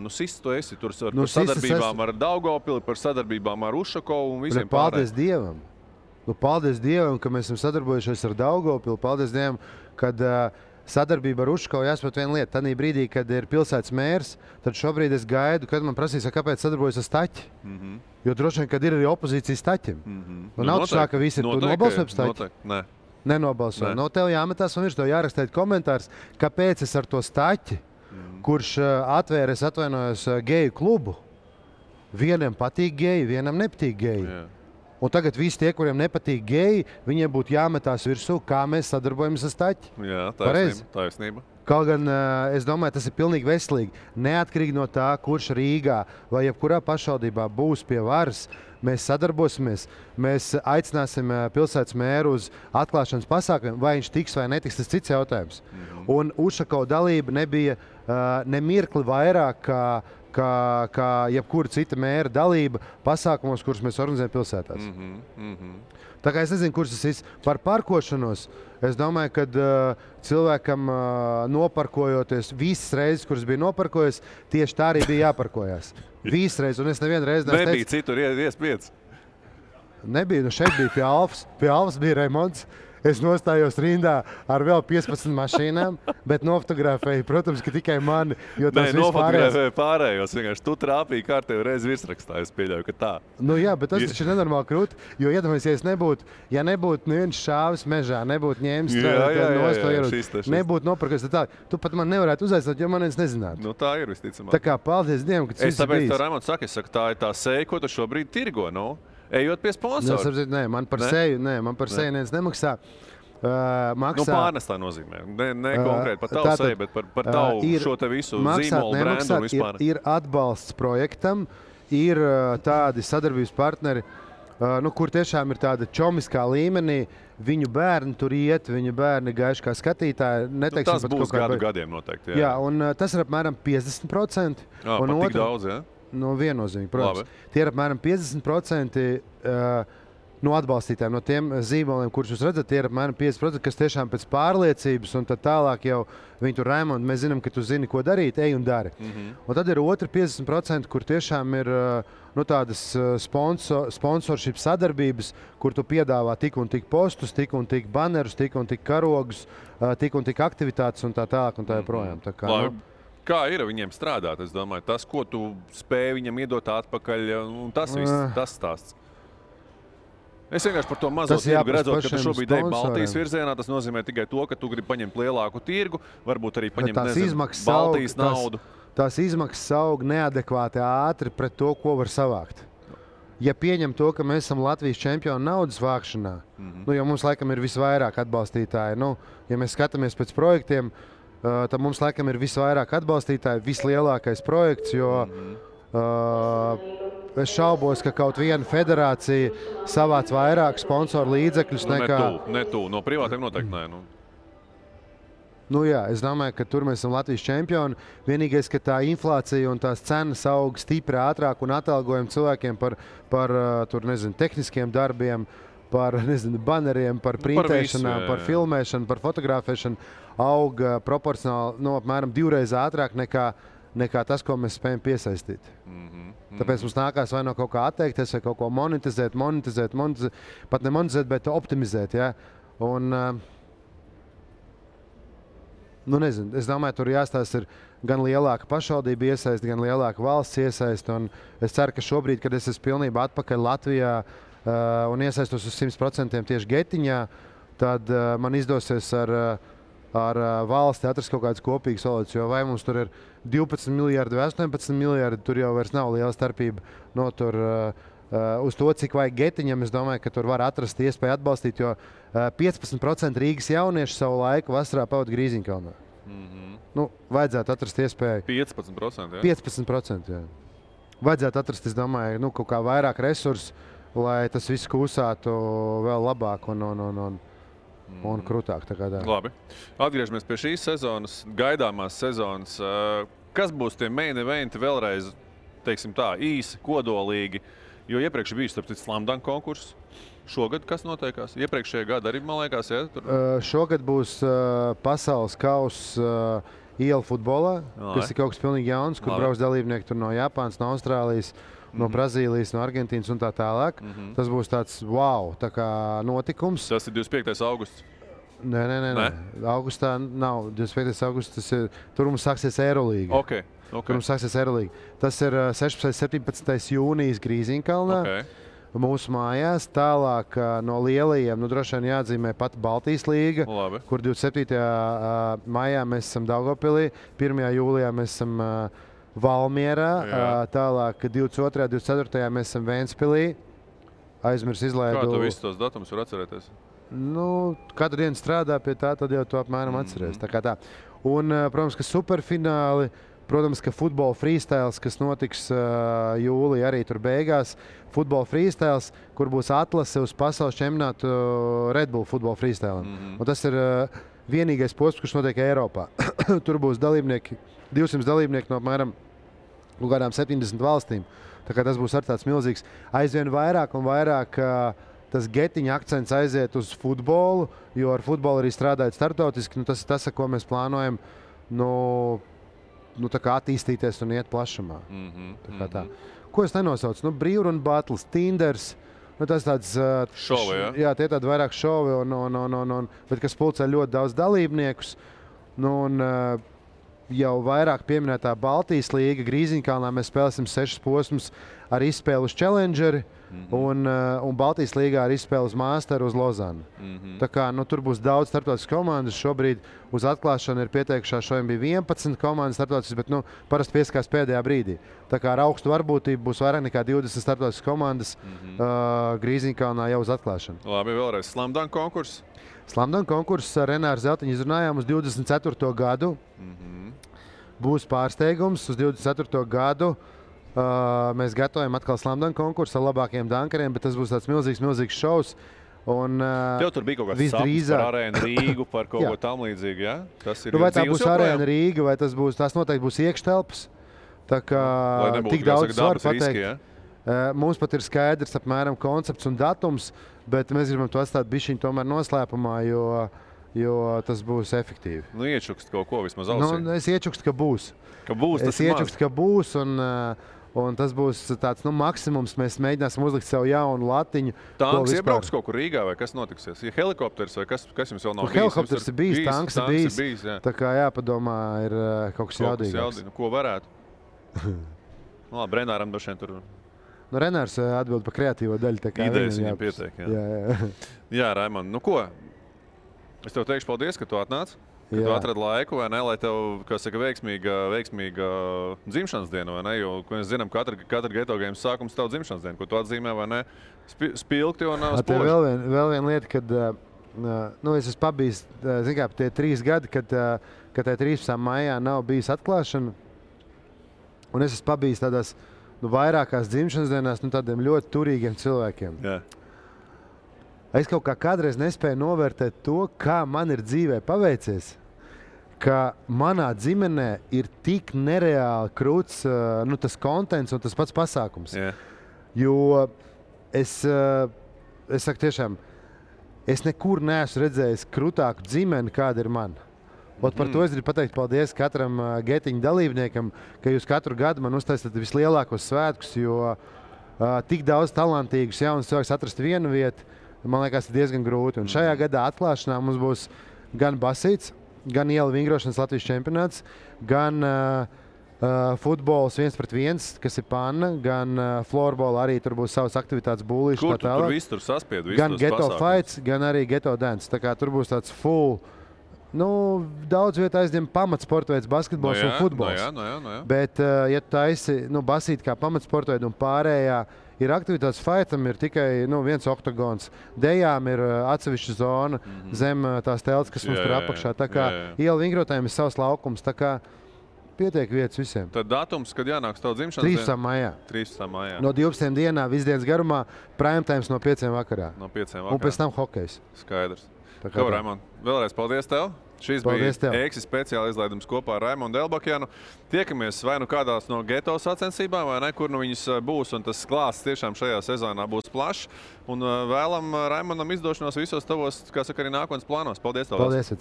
Sists tu esi. Tur par sadarbībām ar Daugavpili, par sadarbībām ar Ušakovu un visiem pārējiem. Paldies Dievam! Paldies Dievam, ka mēs esam sadarbojušies ar Daugavpili. Paldies Dievam, kad sadarbība ar Ušakovu jāsaprot viena lieta. Tanī brīdī, kad ir pilsētas mērs, tad šobrīd es gaidu, kad man prasīs, kāpēc sadarbojas ar Staķi. Jo droši vien, kad ir arī opozīcija Staķim. Nav tā, ka visi ir nobalsojuši par Staķi. Nenobalsoja. Tev jāmetās un tev jārakstīt komentārs, kāpēc es ar to Staķi, kurš atvēra, es atvainojos, geju klubu. Vienam patīk geji, vienam nepatīk geji. Un tagad visi tie, kuriem nepatīk geji, viņiem būtu jāmetās virsū, kā mēs sadarbojamies ar staķi. Jā, taisnība. Kaut gan es domāju, tas ir pilnīgi veselīgi. Neatkarīgi no tā, kurš Rīgā vai jebkurā pašvaldībā būs pie varas, mēs sadarbosimies, mēs aicināsim pilsētas mēru uz atklāšanas pasākumiem, vai viņš tiks vai netiks, tas cits jautājums. Un Ušakova dalība nebija nemirkli vairāk kā jebkura cita mēra dalība pasākumos, kurus mēs organizējam pilsētās. Tā kā es nezinu, kurš tas ir par parkošanos. Es domāju, ka cilvēkam noparkojoties visas reizes, kuras bija noparkojies, tieši tā arī bija jāparkojas. Visas reizes, un es nevienu reizi nebija citur iespējas. Nebija, šeit bija pie Alfas. Pie Alfas bija remonts. Es nostājos rindā ar vēl 15 mašīnām, bet nofotografēju, protams, ka tikai mani, jo tas nofotografēju pārējos. Vienkārši tu trāpīji kārtēju reizi virsrakstā, es pieļauju, ka tā. Nu jā, bet tas taču ir nenormāli krūti, jo iedomājies, ja nebūtu neviens šāvis mežā, nebūtu ņēmis nost to ieroci, nebūtu nopirkos tā, tu pat man nevarētu uzaicināt, jo man viens nezinātu. Nu tā ir visticamāk. Tā kā paldies Dievam, ka tas viss ir bijis. Es tāpēc tev, Raimonds, saku, tā ir tā seja, ko tu šobrīd tirgo, nu? Ejot pie sponsora. Nē, man par seju neviens nemaksā. Nu, pārnestā nozīmē. Ne konkrēti par tavu seju, bet par tavu šo te visu zīmolu, brendu un vispār. Ir atbalsts projektam, ir tādi sadarbības partneri, kur tiešām ir tāda čomiskā līmenī. Viņu bērni tur iet, viņu bērni gaiši kā skatītāji. Tas būs gadiem noteikti. Jā, un tas ir apmēram 50%. Pat tik daudz, jā? No viennozīmīgi, protams. Tie ir apmēram 50% no atbalstītājiem, no tiem zīmoliem, kurus jūs redzat, tie ir apmēram 50%, kas tiešām pēc pārliecības un tad tālāk jau viņi tur Raimonds, mēs zinām, ka tu zini, ko darīt, ej un dari. Un tad ir otri 50%, kur tiešām ir tādas sponsorship sadarbības, kur tu piedāvā tik un tik postus, tik un tik banerus, tik un tik karogus, tik un tik aktivitātes un tā tālāk un tā joprojām. Tā kā, Kā ir viņiem strādāt? Es domāju, tas, ko tu spēj viņam iedot atpakaļ, un tas viss, tas stāsts. Es vienkārši par to mazo tirgu redzot, ka tu šobrīd ej Baltijas virzienā, tas nozīmē tikai to, ka tu gribi paņemt lielāku tirgu, varbūt arī paņemt, Baltijas naudu. Tās izmaksas aug neadekvāti ātri pret to, ko var savākt. Ja pieņem to, ka mēs esam Latvijas čempioni naudas vākšanā, jo mums laikam ir visvairāk atbalstītāji, ja mēs skatāmies pēc projektiem, tad mums laikam ir visvairāk atbalstītāji, vislielākais projekts, jo es šaubos, ka kaut viena federācija savāc vairāk sponsoru līdzekļus nekā... Ne tu, no privātiem noteikti nē. Jā, es domāju, ka tur mēs esam Latvijas čempioni. Vienīgais, ka tā inflācija un tās cenas aug stipri ātrāk un atalgojam cilvēkiem par tehniskiem darbiem, par baneriem, par printēšanām, par filmēšanu, par fotografēšanu aug proporcionāli apmēram 2 reizes ātrāk nekā tas, ko mēs spējam piesaistīt. Tāpēc mums nākās vai no kaut kā atteikties, vai kaut ko monetizēt, pat ne monetizēt, bet optimizēt. Ja? Un, es domāju, tur jāstāsta ir gan lielāka pašvaldība iesaist, gan lielāka valsts iesaist. Un es ceru, ka šobrīd, kad es esmu pilnībā atpakaļ Latvijā un iesaistos uz 100% tieši Getiņā, tad man izdosies ar valsti atrast kaut kādas kopīgas valodas, jo vai mums tur ir 12 miljardi vai 18 miljardi, tur jau vairs nav liela starpība. Uz to, cik vajag Getiņam, es domāju, ka tur var atrast iespēju atbalstīt, jo 15% Rīgas jaunieši savu laiku vasarā pavada Grīziņkalnā. Vajadzētu atrast iespēju. 15%, jā? 15%, jā. Vajadzētu atrast, es domāju, kaut kā vairāk resursu, lai tas viss kūsātu vēl labāk un krūtāk. Labi. Atgriežamies pie šīs sezonas, gaidāmās sezonas. Kas būs tie main eventi vēlreiz, teiksim tā, īsi, kodolīgi? Jo iepriekš bija starp citu slam dunk konkurss. Šogad kas notiekās? Iepriekšējā gada arī, man liekas, ja? Šogad būs pasaules kauss ielu futbolā, kas ir kaut kas pilnīgi jauns, kur brauc dalībnieki tur no Japānas, no Austrālijas, no Brazīlijas, no Argentīnas un tā tālāk. Tas būs tāds tā kā notikums. Tas ir 25. augusts? Nē. Augustā nav 25. augusts. Tur mums sāksies Eirolīga. Okay. Tur mums sāksies Eirolīga. Tas ir 16. 17. jūnijas Grīziņkalnā. Mūsu mājās. Tālāk no lielajiem, droši vien jāatzīmē pat Baltijas līga, kur 27. maijā mēs esam Daugavpilī, 1. jūlijā mēs esam Valmierā, tālāk 22. 24. mēs esam Ventspilī, aizmirs izlaidu. Kā tu visus tos datumus var atcerēties? Nu, katru dienu strādā pie tā, tad jau to apmēram atceries. Tā kā tā. Un, protams, ka superfināli, protams, ka futbola freestyles, kas notiks jūlijā arī tur beigās. Futbola freestyles, kur būs atlase uz pasaules čempionātu Red Bull futbola freestyle. Un tas ir vienīgais posms, kurš notiek Eiropā. Tur būs dalībnieki, 200 dalībnieki no apmēram kādām 70 valstīm. Tā kā tas būs ar tāds milzīgs. Aizvien vairāk un vairāk tas getiņa akcents aiziet uz futbolu, jo ar futbolu arī strādājot startautiski. Nu, tas ir tas, ar ko mēs plānojam tā kā attīstīties un iet plašumā. Tā. Ko es nenosaucu? Brīvrunu battles, Tinders. Tas tāds šovi, ja? Jā, tie tādi vairāk šovi, bet kas pulcē ļoti daudz dalībniekus. Jau vairāk pieminētā Baltijas līga, Grīziņkalnā mēs spēlēsim 6 posmus ar izspēli uz Challengeri un Baltijas līgā ar izspēli uz Masteru uz Lozanu. Tā kā tur būs daudz starptautiskas komandas. Šobrīd uz atklāšanu ir pieteikušās, šodien bija 11 komandas starptautiskas, bet parasti pieskās pēdējā brīdī. Tā kā ar augstu varbūtību būs vairāk nekā 20 starptautiskas komandas Grīziņkalnā jau uz atklāšanu. Labi, vēlreiz Slam Dunk konkurss. Slam Dunk konkurss ar Renāru Zeltiņu izrunājām uz 24. gadu. Būs pārsteigums uz 24. gadu. Mēs gatavojam atkal Slam Dunk konkursu ar labākajiem dunkeriem, bet tas būs tāds milzīgs šovs. Tev tur bija kaut kāds sapnis par Arēnu Rīgu, par kaut ko tam līdzīgu, ja? Tas ir vai tā būs Arēna Rīga, vai tās noteikti būs iekštelpas. Tā kā tik daudz var pateikt. Ja? Mums pat ir skaidrs apmēram koncepts un datums, bet mēs gribam to atstāt bišķiņu tomēr noslēpumā, jo tas būs efektīvi. Iečukst kaut ko vismaz ausī. Es iečukstu, ka būs. Es iečukstu, ka būs, un tas būs tāds maksimums. Mēs mēģināsim uzlikt sev jaunu latiņu. Tanks iebrauks kaut kur Rīgā, vai kas notiksies? Ir helikopters, vai kas jums vēl nav bijis? Helikopters ir bijis, tanks ir bijis. Tā kā jāpadomā, ir kaut kas jaudīgāks. Ko varētu? Labi, Renāram došiem tur... Renārs atbild par kreatīvo daļu. Idejas viņam pietiek. Jā, Raimond, ko? Es tev teikšu paldies, ka tu atnāc. Ka tu atradi laiku, vai ne, lai tev, kā saka, veiksmīga dzimšanas diena, vai ne? Jo, ko mēs zinām, katra Geto Games sākums tev dzimšanas diena, ko tu atzīmē, vai ne? Spilgti un spoži. Vēl viena lieta, kad es esmu pabijis, zin kā, tie 3 gadi, kad tā 13. maijā nav bijis atklāšana, un es esmu pabijis tādās vairākās dzimšanas dienās tādiem ļoti turīgiem cilvēkiem. Jā. Es kaut kā kādreiz nespēju novērtēt to, kā man ir dzīvē paveicies, ka manā ģimenē ir tik nereāli krūts tas kontents un tas pats pasākums. Yeah. Jo es saku tiešām, es nekur neesmu redzējis krūtāku ģimeni, kāda ir man. Par to es gribu pateikt paldies katram getiņu dalībniekam, ka jūs katru gadu man uztaisat vislielākos svētkus, jo tik daudz talantīgus jaunus cilvēkus atrast vienu vietu, man liekas, ir diezgan grūti. Un šajā gadā atklāšanā mums būs gan basīts, gan iela vingrošanas Latvijas čempionāts, gan futbols 1-1, kas ir panna, gan florbola arī tur būs savas aktivitātes būlīši. Kur tur viss tur saspied? Gan Geto Fights, gan arī Geto Dance. Tā kā tur būs tāds full, daudz vietā aizņem pamatsportveids basketbols un futbols. No jā. Bet, ja tu taisi basīt kā pamatsportveidu un pārējā, ir aktivitātes fightam, ir tikai viens oktagons. Dejām ir atsevišķa zona zem tās telts, kas mums tur apakšā. Tā kā iela vingrotājiem ir savs laukums, tā kā pietiek vietas visiem. Tad datums, kad jānāks tavu dzimšanas dienu? 13. maijā. 13. maijā. No 12 dienā, visdienas garumā, prime times no 5 vakarā. No 5 vakarā. Un pēc tam hokejs. Skaidrs. Ko, Raimond, vēlreiz paldies tev. Šis bija EXI speciāla izlaidums kopā ar Raimondu Elbakjanu. Tiekamies vai kādās no Geto sacensībām, vai ne, kur viņas būs, un tas klāsts tiešām šajā sezonā būs plašs. Un vēlam Raimondam izdošanos visos tavos, kā saka, arī nākotnes plānos. Paldies tev! Paldies!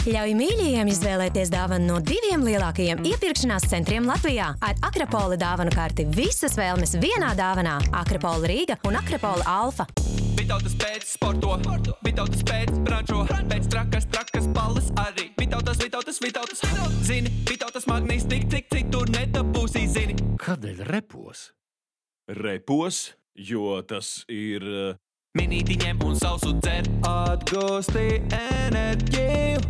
Ļauj mīļajiem izvēlēties dāvanu no 2 lielākajiem iepirkšanās centriem Latvijā. Ar Akrapola dāvanu karti visas vēlmes vienā dāvanā. Akrapola Rīga un Akrapola Alfa. Vitautas pēc sporto, Vitautas pēc brančo, pēc trakas balles arī. Vitautas, zini, Vitautas magnīs tik, cik tur nedabūsī, zini. Kādēļ repos? Repos, jo tas ir... Minīti ņem un sausu dzer, atgūsti enerģiju.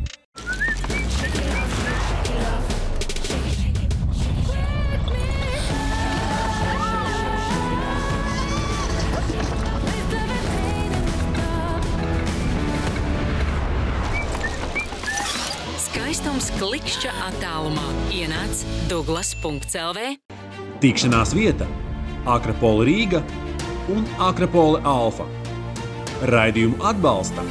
uz klikšķa attālumā ienāc Douglas.lv. Tikšanās vieta Akropola Rīga un Akropola Alfa. Raidījumu atbalsta